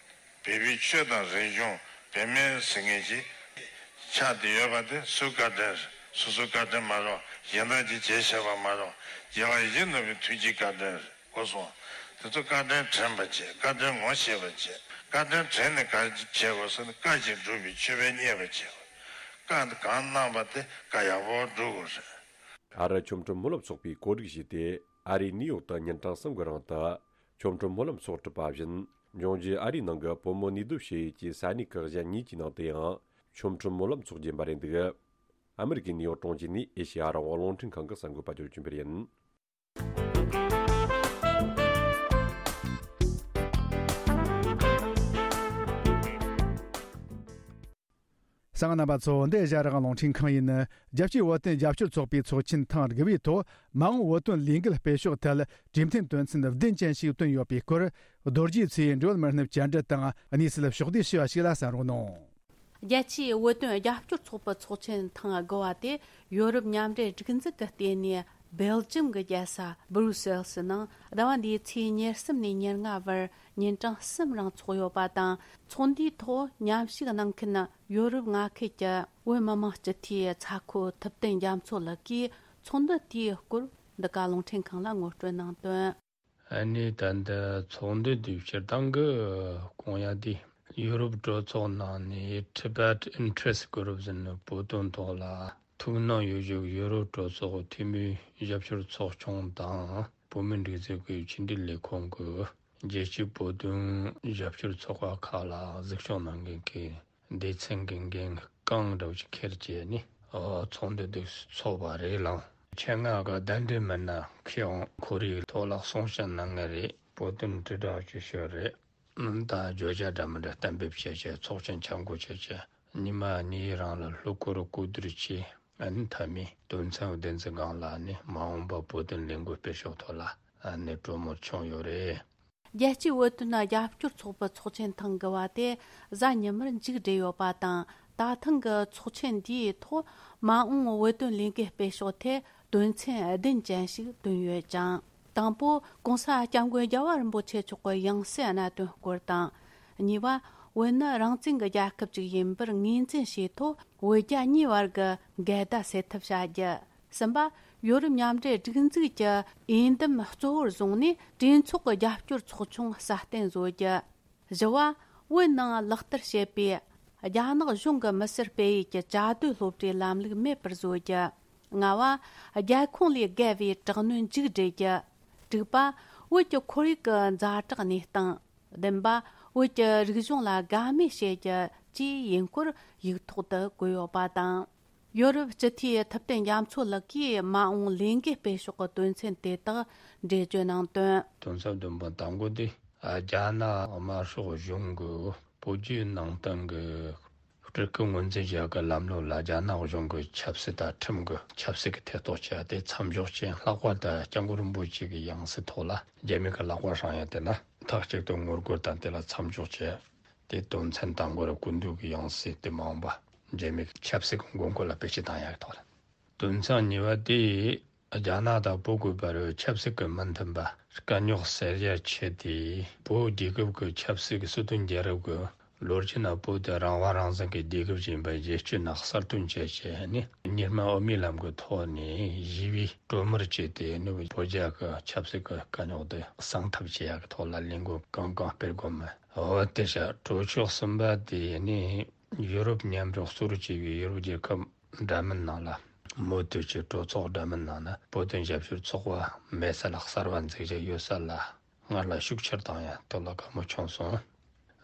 བོད་པའི་ཆོས་དང་རིག་གཞུང་བོད་མིའི་ཟེར་མཁན་ཞིག་ཆགས་བསྡད་ཡོད་པ་དེ་སུའི་བཀའ་དྲིན་རེད། སོ་སོའི་བཀའ་དྲིན་མ་རེད། གཞན་དག་གིས་བྱས་བཞག་པ་མ་རེད། རྒྱལ་བ་ཡིད་བཞིན་ནོར་བུའི་ཐུགས་རྗེའི་བཀའ་དྲིན་རེད། གོ་སོང་། དེ་ཚོ་བཀའ་དྲིན་དྲན་པ་བྱེད། བཀའ་དྲིན་ངོ་ཤེས་པ་བྱེད། བཀའ་དྲིན་དྲན་ནས་ག་རེ་བྱེད་དགོས་ཟེར་ན། བཀའ་བཞིན་སྒྲུབ་པའི་མཆོད་པས་མཉེས་པར་བྱེད་དགོས། བཀའ་གང་གནང་བ་དེ་བཀའ་ཡག་པོ་སྒྲུབ་དགོས་རེད། ཨ་རི་ཆོ་འཕྲུལ་སྨོན་ལམ་ཚོགས་པས་གོ་སྒྲིག་བྱས་ཏེ། ཨ་རིའི་ནིའུ་ཡོག་ཏུ་ཉིན་གྲངས་གསུམ་གྱི་རིང་དུ་ཆོ་འཕྲུལ་སྨོན་ལམ་ཚོགས་གྲུབ་པ་བཞིན། འབྱུང་འགྱུར་ཨ་རིའི་ནང་གི་བོད་མི་གནས་སྡོད་བྱེད་ཡུལ་གྱི་ས་གནས་ཁག་གཞན་གཉིས་ཀྱི་ནང་དུ་ཡང་ཆོ་འཕྲུལ་སྨོན་ལམ་འཚོགས་རྒྱུ་ཡིན་པ་རེད་འདུག་ཨ་མི་རི་ཀའི་ནིའུ་ཡོག་གྲོང་ཁྱེར་ནས་ཨེ་ཤེ་ཡ་རང་དབང་རླུང་འཕྲིན་ཁང་གི་གསར་འགོད་པ་ཇོ་ཆུན་པེར་ཡིན། གསན་མཁན་རྣམ་པ་ཚོ། འདི་ཨེ་ཤ་ཡ་རང་དབང་རླུང་འཕྲིན་ཁང་ཡིན། རྒྱལ་སྤྱིའི་བོད་དོན་རྒྱབ་སྐྱོར་ཚོགས་པའི་ཚོགས་ཆེན་ཐེངས་དགུ་པའི་ཐོག་མ་འོངས་བོད་དོན་ལས་འགུལ་སྤེལ་ཕྱོགས་ཐད་གྲོས་མཐུན་དོན་ཚན་བདུན་ཅན་ཞིག་བཏོན་ཡོད་པའི་སྐོར། རྡོ་རྗེ་མཚོའི་འབྲེལ་ཡོད་མི་སྣས་བཅར་འདྲི་དང་གནས་ཚུལ་ཕྱོགས་བསྡུས་ཞུས་པ་ཞིག་ལ་གསན་རོགས་གནང་། རྒྱལ་སྤྱིའི་བོད་དོན་རྒྱབ་སྐྱོར་ཚོགས་པའི་ཚོགས་ཆེན་ཐེངས་དགུ་པ་དེ་ཡོ་རོབ་མཉམ་འབྲེལ་སྒྲིག་འཛུགས་ཀྱི་ལྟེ་གནས་སྦེལ་ཇམ་གྱི་རྒྱལ་ས་སྦུ་རུ་སེལ་སི་ནང་ཟླ་བ་འདིའི་ཚེས་ཉེར་གསུམ་ནས་ཉེར་ལྔ་བར་ཉིན་གྲངས་གསུམ་རིང་འཚོགས་ཡོད་པ་དང་། ཚོགས་འདུའི་ཐོག་མཉམ་ཞུགས་གནང་མཁན་ཡོ་རོབ་མངའ་ཁུལ་གྱི་བོད་མི་མང་སྤྱི་འཐུས་ཚ་ཁོ་ཐུབ་བསྟན་རྒྱ་མཚོ་ལགས་ཀྱིས་ཚོགས་འདུ་དེའི་སྐོར་འདི་ག་རླུང་འཕྲིན་ཁང་ལ་ངོ་སྤྲོད་གནང་དོན། ཨ་ནི་ད་ལྟ་ཚོགས་འདུ་དེ་སྤྱིར་བཏང་གི་སྐོང་ཡ་དེ་ཡུ་རོབ་གྲོས་ཚོགས་ནང་ནས་Tibet Interest Group ཟེར་ནས་བོད་དོན་ཐོག་ལ་ཐུགས་སྣང་ཡོད་ཞུ་ཡུ་རོབ་གྲོས་ཚོགས་འཐུས་མིའི་རྒྱབ་སྐྱོར་ཚོགས་ཆུང་དང་བོད་མིའི་སྒྲིག་འཛུགས་ཀྱི་ཕྱི་འབྲེལ་ལས་ཁུངས་ཀྱི་རྒྱལ་སྤྱིའི་བོད་དོན་རྒྱབ་སྐྱོར་ཚོགས་པ་ཁག་ལ་གཟིགས་སྐྱོང་གནང་མཁན་གྱི་སྡེ་ཚན་གྱི་འགན་རྐང་འདྲ་བོ་ཅིག་འཁྱེར་བྱས་ནས་ཚོགས་འདུ་འདི་ཚོགས་པ་རེད་ལགས། ཆེད་མངགས་གི་གདན་འདྲེན་མི་སྣ་ཁྱེད་ཡང་ཁོ་རའི་ཐོག་ལ་གསུང་བཤད་གནང་གི་རེད། བོད་དོན་དྲིལ་བསྒྲགས་ཀྱི་ཞོར་རེད། ད་བརྗོད་བྱ་འདྲ་མི་འདྲ་གཏན་འབེབས་བྱས་བྱས་ཚོགས་ཆེན་ཆ་བགོས་བྱས་བྱས་ཉི་མ་གཉིས་རིང་ལ་གློ་བསྐོར་གོ་བསྡུར་བྱས། ཨ་ནི་མཐའ་མའི་དོན་ཚན་བདུན་ཙམ་སྒང་ལ་ནི་མ་འོངས་པ་བོད་དོན་ལས་འགུལ་སྤེལ་ཕྱོགས་ཐོག་ལ་ཨ་ནི་གྲོས་མོལ་བྱུང་ཡོད་རེད། རྒྱལ་སྤྱིའི་བོད་དོན་རྒྱབ་སྐྱོར་ཚོགས་པའི་ཚོགས་ཆེན་ཐེངས་དགུ་པ་དེ་གཟའ་ཉི་མར་མཇུག་བསྒྲིལ་ཡོད་པ་དང་། ད་ཐེངས་ཀྱི་ཚོགས་ཆེན་འདིའི་ཐོག་མ་འོངས་བོད་དོན་ལས་འགུལ་སྤེལ་ཕྱོགས་ཐད་དོན་ཚན་བདུན་ཅན་ཞིག་བཏོན་ཡོད་ཅིང་། དང་པོ། ྋགོང་ས་ྋསྐྱབས་མགོན་རྒྱལ་བ་རིན་པོ་ཆེ་མཆོག་གི་ཡང་སྲིད་གནད་དོན་སྐོར་དང་། གཉིས་པ། བོད་ནི་རང་བཙན་གྱི་རྒྱལ་ཁབ་ཅིག་ཡིན་པར་ངོས་འཛིན་བྱས་ཐོག་བོད་རྒྱ་གཉིས་བར་གྱི་འགལ་ཟླ་སེལ་ཐབས་བྱ་རྒྱུ། གསུམ་པ། ཡོ་རོབ་མཉམ་འབྲེལ་སྒྲིག་འཛུགས་ཀྱི་འོས་འདེམས་གཙོ་བོར་བཟུང་ནས་གྲོས་ཚོགས་ཀྱི་རྒྱབ་སྐྱོར་ཚོགས་ཆུང་སྲ་བརྟན་བཟོ་རྒྱུ། བཞི་བ། བོད་ནང་ལག་བསྟར་བྱེད་པའི་རྒྱ་ནག་གཞུང་གི་མི་སེར་སྤེལ་ཡུལ་གྱི་བཅའ་སྡོད་སློབ་གྲྭའི་ལམ་ལུགས་མེད་པར་བཟོ་རྒྱུ། ལྔ་བ། རྒྱལ་ཁོངས་ལས་བརྒལ་བའི་དྲག་གནོན་མཇུག་སྒྲིལ་རྒྱུ། དྲུག་པ། བོད་ཀྱི་ཁོར་ཡུག་གི་ཛ་དྲག་གནས་སྟངས། བདུན་པ། བོད་ཀྱི་རིག་གཞུང་ལ་དགའ་མོས་བྱེད་རྒྱུ། བཅས་ཡིན་སྐོར་ཡིག་ཐོག་ཏུ་བཀོད་ཡོད་པ་དང་། ཡོ་རོབ་སྤྱི་འཐུས་ཐུབ་བསྟན་རྒྱ་མཚོ་ལགས་ཀྱིས་མ་འོངས་ལས་འགུལ་སྤེལ་ཕྱོགས་ཀྱི་དོན་ཚན་དེ་དག་འགྲེལ་བརྗོད་གནང་དོན། དོན་ཚན་བདུན་པ་དང་པོ་དེ། རྒྱ་ནག་དམར་ཤོག་གཞུང་གི་བོད་བརྒྱུད་ནང་བསྟན་གྱི་སྤྲུལ་སྐུ་ངོས་འཛིན་བྱ་དགའི་ལམ་ལུགས་ལ་རྒྱ་ནག་གཞུང་གི་ཆབ་སྲིད་དང་ཁྲིམས་ཀྱི་ཆབ་སྲིད་ཀྱི་ཐེ་གཏོགས་བྱས་ཏེ་མཚམས་འཇོག་ཅན། ལྷག་པར་དུ་སྐྱབས་མགོན་རིན་པོ་ཆེ་གི་ཡང་སྲིད་ཐོག་ལ་རྒྱ་མི་གི་ལག་པ་བསྲིངས་ཡ་དེ་ལ་མཐའ་གཅིག་ཏུ་ངོ་རྒོལ་དང་དེ་ལ་མཚམས་འཇོག་བྱས། དེ་དོན་ཚན་དང་པོ་རུ་སྐུ་མདུན་གྱི་ཡང་སྲིད་དེ་མ་འོངས་པ་རྒྱ་མི་གི་ཆབ་སྲིད་ཀྱི་དགོས་མཁོ་ལ་བེད་སྤྱོད་བཏང་ཡ་གི་ཐོག་ལ། དོན་ཚན་གཉིས་པ་དེ། རྒྱ་ནག་དང་བོད་ཀྱི་བར་ཆབ་སྲིད་ཀྱི་མི་མཐུན་པ་དཀའ་རྙོག་སེལ་ཡ་ཆེད་དེ། བོད་རྒྱལ་ཁབ་ཀྱི་ཆབ་སྲིད་ཀྱི་སྲིད་དོན་རྒྱལ་རབས་ཀྱི་ལོ་རྒྱུས་ནང་བོད་དེ་རང་དབང་རང་བཙན་གྱི་རྒྱལ་ཁབ་ཅིག་ཡིན་པ་རྒྱལ་སྤྱིའི་ནང་གསལ་སྟོན་བྱས་བྱས་ནས། གཉིས་སྨན་དབུ་མའི་ལམ་གྱི་ཐོག་ནས་ཞི་བའི་གྲོས་མོལ་བྱས་ཏེ་ནི་བོད་རྒྱ་གི་ཆབ་སྲིད་ཀྱི་དཀའ་རྙོག་དེ་གསང་ཐབས་བྱེད་ཡག་གི་ཐོག་ལ་ལས་འགུལ་གང་གང་སྤེལ་དགོས་མིན། འོ་དེ་བྱས། གྲོས་ཆོད་གསུམ་པ་དེ་ནི་ཡུ་རོབ་མཉམ་འབྲེལ་གཙོ་བྱས་པའི་ཡུ་རོབ་རྒྱལ་ཁབ་འདྲ་མིན་ནང་ལ། མུ་མཐུད་ཀྱི་གྲོས་ཚོགས་འདྲ་མིན་ནང་ན་བོད་དོན་རྒྱབ་སྐྱོར་ཚོགས་པ་མེད་ས་ལ་གསར་བ་འཛུགས་རྒྱུ་ཡོད་ས་ལ་སྔར་ལ་ཤུགས་ཆེར་བཏང་ཡ་དེ་ལ་དགའ་མོ་བྱུང་སོང་།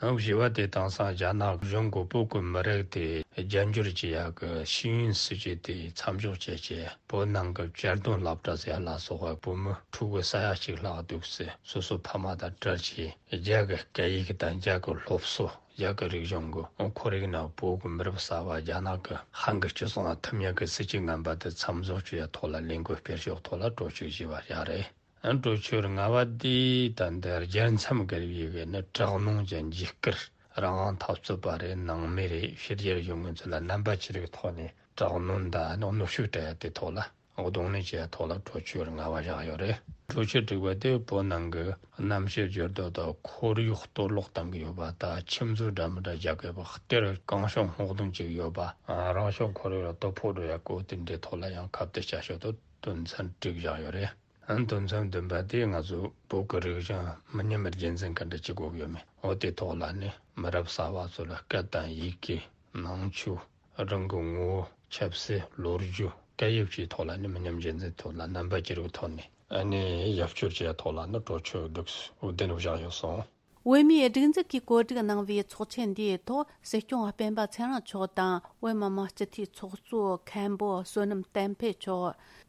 ཨང་། བཞི་པ་དེ་དེང་སང་རྒྱ་ནག་གཞུང་གིས་བོད་ཀྱི་མི་རིགས་དེ་རྒྱ་འགྱུར་བྱེད་ཡག་གི་ཤེས་ཡོན་སྲིད་ཇུས་དེ་མཚམས་འཇོག་བྱས་བྱས། བོད་ནང་གི་གཅར་རྡུང་སློབ་གྲྭ་ཟེར་ཡ་ལ་སོགས་པ་བོད་མི་ཕྲུ་གུ་ས་ཡ་གཅིག་ལྷག་འདུག་སེ་སོ་སོ་ཕ་མ་དང་བྲལ་བྱས། རྒྱ་གི་སྐད་ཡིག་དང་རྒྱ་གི་སློབ་གསོ། རྒྱ་གི་རིག་གཞུང་གི་ཁོར་ཡུག་ནང་བོད་ཀྱི་མི་རབས་གསར་པ་རྒྱ་ནག་གི་ཧན་གྱི་སྤྱི་ཚོགས་ནང་ཐིམ་ཡག་གི་སྲིད་ཇུས་ངན་པ་དེ་མཚམས་འཇོག་བྱེད་ཡ་ཐོག་ལ་ལས་འགུལ་སྤེལ་ཕྱོགས་ཐོག་ལ་གྲོས་ཆོད་བཞེས་པ་རེད། ཨ། གྲོས་ཆོད་ལྔ་པ་དེ་ད་ལྟ་རྒྱལ་མཚམས་བརྒལ་བའི་གི་ནི་དྲག་གནོན་གྱི་འཇིགས་སྐུལ། རང་དབང་འཐབ་རྩོད་པ་རེད་ནང་མི་རེད། ཕྱི་རྒྱལ་ཡོད་མཁན་ཚོ་ལ་རྣམ་པ་ཅི་རིགས་ཐོག་ནས་དྲག་གནོན་དང་གནོན་ཤུགས་སྤྲད་ཡ་དེ་ཐོག་ལ་གདོང་ལེན་བྱེད་ཡ་ཐོག་ལ་གྲོས་ཆོད་ལྔ་པ་བཞག་ཡོད་རེད། གྲོས་ཆོད་དྲུག་པ་དེ་བོད་ནང་གི་གནམ་གཤིས་འགྱུར་ལྡོག་དང་ཁོར་ཡུག་གཏོར་བརླག་བཏང་གི་ཡོད་པ་དང་། ཁྱིམ་མཚེས་འདྲ་མི་འདྲ་རྒྱ་སྐད་པ་གཏེར་གང་བྱུང་སྔོག་འདོན་བྱེད་ཀྱི་ཡོད་པ། རང་བྱུང་ཁོར་ཡུག་ལ་དོ་ཕོག་འགྲོ་ཡ་སྐོར་དེ་འདྲའི་ཐོག་ལ་ཡང་ཁ་གཏད་བྱ་ཕྱོགས་དེ་དོན་ཚན་དྲུག་བཞག་ཡོད་རེད། ཨ། དོན་ཚན་བདུན་པ་དེ་ང་ཚོ་བོད་ཀྱི་རིག་གཞུང་མི་ཉམས་རྒྱུན་འཛིན་ག་འདྲ་བྱེད་དགོས་ཀྱི་ཡོད་མེད། འོ་དེ་ཐོག་ལ་ནི་མི་རབས་གསར་པ་ཚོ་ལ་སྐད་དང་ཡི་གེ། ནང་ཆོས། རང་གི་ངོ་བོ། ཆབ་སྲིད། ལོ་རྒྱུས། སྐད་ཡིག་བཅས་ཐོག་ལ་ནི་མི་ཉམས་རྒྱུན་འཛིན་ཐོག་ལ་རྣམ་པ་ཅི་རིགས་ཐོག་ནས་ཨ་ནི་རྒྱབ་སྐྱོར་བྱེད་ཐོག་ལ་ནི་གྲོས་ཆོད་དྲུག་བདུན་བཞག་ཡོད་སོང་། བོད་མིའི་སྒྲིག་འཛུགས་ཀྱིས་གོ་སྒྲིག་གནང་བའི་ཚོགས་ཆེན་འདིའི་ཐོག་སྲིད་སྐྱོང་སྤེན་པ་ཚེ་རིང་མཆོག་དང་བོད་མི་མང་སྤྱི་འཐུས་ཚོགས་གཙོ་མཁན་པོ་བསོད་ནམས་བསྟན་འཕེལ་མཆོག་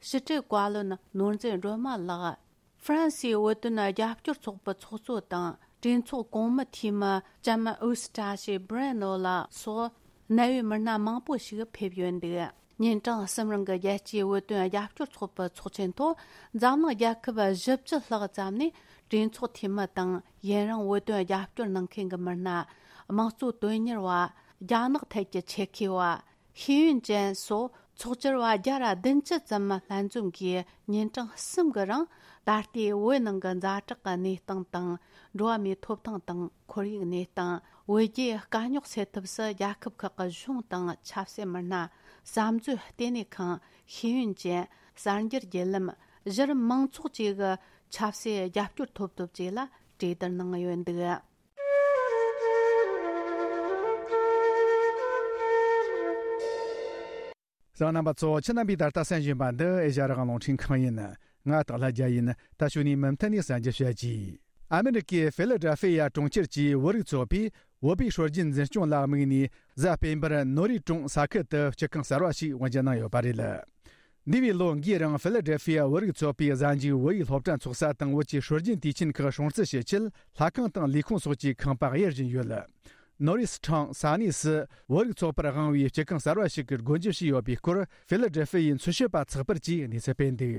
ཕྱི་དྲིལ་བཀའ་བློན་ནོར་འཛིན་སྒྲོལ་མ་ལགས། ཧྥ་རན་སིའི་བོད་དོན་རྒྱབ་སྐྱོར་ཚོགས་པའི་ཚོགས་གཙོ་དང་གྲོས་ཚོགས་གོང་མའི་འཐུས་མི་ལྕམ་ཨུ་སི་ཏྲ་ཤི་སྦི་རེ་ནོ་ལགས་སོགས་གནད་ཡོད་མི་སྣ་མང་པོ་ཞིག་ཕེབས་ཡོད་འདུག་ཉིན་གྲངས་གསུམ་རིང་གི་རྒྱལ་སྤྱིའི་བོད་དོན་རྒྱབ་སྐྱོར་ཚོགས་པའི་ཚོགས་ཆེན་ཐོག་འཛམ་གླིང་རྒྱལ་ཁབ་བཞི་བཅུ་ལྷག་ཙམ་ནས་གྲོས་ཚོགས་འཐུས་མི་དང་ཡུན་རིང་བོད་དོན་རྒྱབ་སྐྱོར་གནང་མཁན་གྱི་མི་སྣ། དམངས་གཙོ་དོན་གཉེར་བ། རྒྱ་ནག་ཐད་ཀྱི་ཆེད་མཁས་པ། ཤེས་ཡོན་ཅན་སོགས་ཚོགས་བཅར་བ་བརྒྱ་ར་བདུན་ཅུ་ཙམ་ལྷན་འཛོམས་ཀྱིས་ཉིན་གྲངས་གསུམ་གྱི་རིང་ད་ལྟའི་བོད་ནང་གི་ཛ་དྲག་གི་གནས་སྟངས་དང་། འགྲོ་བ་མིའི་ཐོབ་ཐང་དང་ཁོར་ཡུག་གནས་སྟངས། བོད་རྒྱའི་དཀའ་རྙོག་སེལ་ཐབས་སུ་རྒྱལ་ཁབ་ཁག་གི་གཞུང་དང་ཆབ་སྲིད་མི་སྣ། བསམ་མཛོད་ལྟེ་གནས་ཁང་། ཤེས་ཡོན་ཅན། གསར་འགྱུར་བརྒྱུད་ལམ། གཞི་རིམ་མང་ཚོགས་བཅས་ཀྱི་ཆབ་སྲིད་རྒྱབ་སྐྱོར་ཐོབ་ཐབས་བཅས་ལ་གྲོས་བསྡུར་གནང་ཡོད་འདུག་གསན་རྣམ་པ་ཚོ། ཁྱེད་རྣམ་པས་ད་ལྟ་གསན་བཞིན་པ་འདི་ཨེ་ཤ་ཡ་རང་དབང་རླུང་འཕྲིན་ཁང་ཡིན། ང་སྟག་ལྷ་རྒྱལ་ཡིན། ད་ཞུ་ནས་མུ་མཐུད་ནས་གསན་རྒྱུ་བྱ་རྒྱུ། ཨ་མི་རི་ཀའི་ཧྥི་ལ་ཌེལ་ཧྥི་ཡ་གྲོང་ཁྱེར་གྱི་བོད་རིགས་ཚོགས་པས་བོད་པའི་སྲོལ་རྒྱུན་འཛིན་སྐྱོང་ལ་དམིགས་ནས་གཟའ་སྤེན་པར་ནོ་རི་ཀྲུང་ས་ཁུལ་དུ་སྤྱི་ཁང་གསར་བ་ཞིག་དབུ་འབྱེད་གནང་ཡོད་པ་རེད། འདས་པའི་ལོ་འགའི་རིང་ཧྥི་ལ་ཌེལ་ཧྥི་ཡ་བོད་རིགས་ཚོགས་པའི་གཟའ་མཇུག་བོད་ཡིག་སློབ་གྲྭ་འཚོགས་ས་དང་བོད་ཀྱི་སྲོལ་རྒྱུན་དུས་ཆེན་ཁག་སྲུང་བརྩི་བྱེད་ཆེད་ལྷ་ཁང་དང་ལས་ཁུངས་སོགས་ཀྱི་ཁང་པ་གཡར་བཞིན་ཡོད། ནོ་རིས་ཁྲང་ས་གནས་སུ་བོད་རིགས་ཚོགས་པར་དབང་བའི་སྤྱི་ཁང་གསར་བ་ཞིག་གི་སྒོ་འབྱེད་བྱས་ཡོད་པའི་སྐོར་ཧྥི་ལ་ཌེལ་ཧྥི་ཡའི་འཚོལ་ཞིབ་པ་ཚགས་པར་གྱིས་གནས་ཚུལ་སྤེལ་འདུག་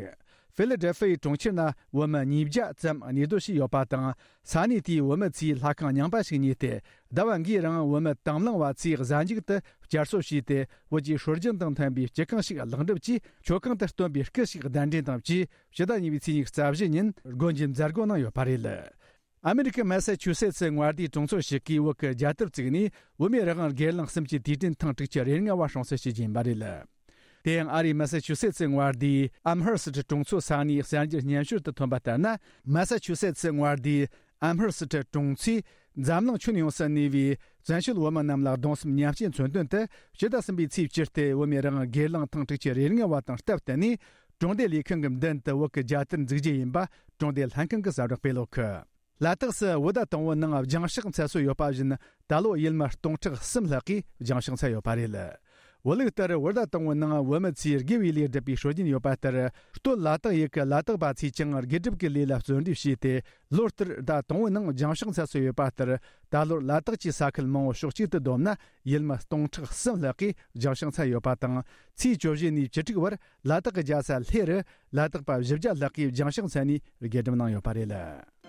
ཧྥི་ལ་ཌེལ་ཧྥི་ཡའི་གྲོང་ཁྱེར་ན་བོད་མི་ཉིས་བརྒྱ་ཙམ་གནས་སྡོད་བྱས་ཡོད་པ་དང་། ས་གནས་དེའི་བོད་མི་ཚོས་ལྷ་ཁང་རྙིང་པ་ཞིག་ཉོས་ཏེ། ཟླ་བ་འགའི་རིང་བོད་མི་དང་བླངས་པ་ཚོས་གཟའ་མཇུག་ཏུ་བསྐྱར་གསོ་བྱས་ཏེ། བོད་ཀྱི་སྲོལ་རྒྱུན་དང་མཐུན་པའི་སྤྱི་ཁང་ཞིག་ལེགས་འགྲུབ་ཀྱིས་མཆོད་ཁང་དུ་སྟོན་པའི་སྐུ་ཞིག་གདན་འདྲེན་དང་བཅས་ཕྱི་ཟླ་གཉིས་པའི་ཚེས་ཉི་ཤུ་རྩ་བཞི་ཉིན་སྒོ་འབྱེད་མཛད་སྒོ་གནང་ཡོད་པ་རེད། ཨ་མི་རི་ཀའི་མ་ས་ཆུ་སེ་ཚི་མངའ་སྡེའི་གྲོང་ཚོ་ཞིག་གིས་བོད་ཀྱི་རྒྱལ་དར་བཙུགས་ནས་བོད་མིའི་རང་དབང་སྒེར་ལངས་གསུམ་གྱི་དུས་དྲན་ཐེངས་དྲུག་ཅུ་རེ་ལྔ་བ་སྲུང་བརྩི་ཞུ་རྒྱུ་ཡིན་པ་རེད། དེ་ཡང་ཨ་རིའི་མ་ས་ཆུ་སེ་ཚི་མངའ་སྡེའི་ཨམ་ཧར་སི་ཊི་གྲོང་ཚོའི་ས་གནས་གསར་འགྱུར་སྙན་ཞུར་དུ་ཐོན་པ་ལྟར་ན། མ་ས་ཆུ་སེ་ཚི་མངའ་སྡེའི་ཨམ་ཧར་སི་ཊི་གྲོང་ཚོས་འཛམ་གླིང་ཁྱོན་ཡོངས་སུ་གནས་པའི་བཙན་བྱོལ་བོད་མི་རྣམས་ལ་གདུང་སེམས་མཉམ་སྐྱེད་མཚོན་དོན་དུ། ཕྱི་ཟླ་གསུམ་པའི་ཚེས་བཅུ་སྟེ་བོད་མིའི་རང་དབང་སྒེར་ལངས་ཐེངས་དྲུག་ཅུ་རེ་ལྔ་བ་དང་སྟབས་བསྟུན་ནས། གྲོང་སྡེ་ལས་ཁུངས་ཀྱི་མདུན་དུ་བོད་ཀྱི་རྒྱལ་དར་འཛུགས་རྒྱུ་ཡིན་པ་གྲོང་སྡེ་ལྷན་ཁང་གིས་གསལ་བསྒྲགས་སྤེལ་ཡོད་གི། ལ་དྭགས་སུ་བོད་ཟླ་དང་པོའི་ནང་སྦྱང་བཤགས་འཚལ་སྲོལ་ཡོད་པ་བཞིན། ད་ལོ་ཡུལ་མི་སྟོང་ཕྲག་གསུམ་ལྷག་གིས་སྦྱང་བཤགས་འཚལ་ཡོད་པ་རེད། བོད་ལུགས་ལྟར་བོད་ཟླ་དང་པོའི་ནང་བོད་མི་ཚོས་དགེ་བའི་ལས་སྒྲུབ་པའི་སྲོལ་རྒྱུན་ཡོད་པ་ལྟར། སྟོད་ལ་དྭགས་ཡུལ་གྱི་ལ་དྭགས་པ་ཚོས་ཀྱང་དགེ་སྒྲུབ་ཀྱི་ལས་ལ་བརྩོན་འགྲུས་བྱས་ཏེ། ལོ་ལྟར་ཟླ་དང་པོའི་ནང་སྦྱང་བཤགས་འཚལ་སྲོལ་ཡོད་པ་ལྟར། ད་ལོར་ལ་དྭགས་ཀྱི་ས་ཁུལ་མང་བོ་ཕྱོགས་གཅིག་ཏུ་བསྡོམས་ན། ཡུལ་མི་སྟོང་ཕྲག་གསུམ་ལྷག་གིས་སྦྱང་བཤགས་འཚལ་ཡོད་པ་དང་། ཚེས་བཅུ་བཞི་ནས་བཅུ་དྲུག་བར་ལ་དྭགས་ཀྱི་རྒྱལ་ས་ལྷེ་རུ་ལ་དྭགས་པ་བཞི་བརྒྱ་ལྷག་གིས་སྦྱང་བཤགས་འཚལ་ནས་དགེ་སྒྲུབ་གནང་ཡོད་པ་རེད།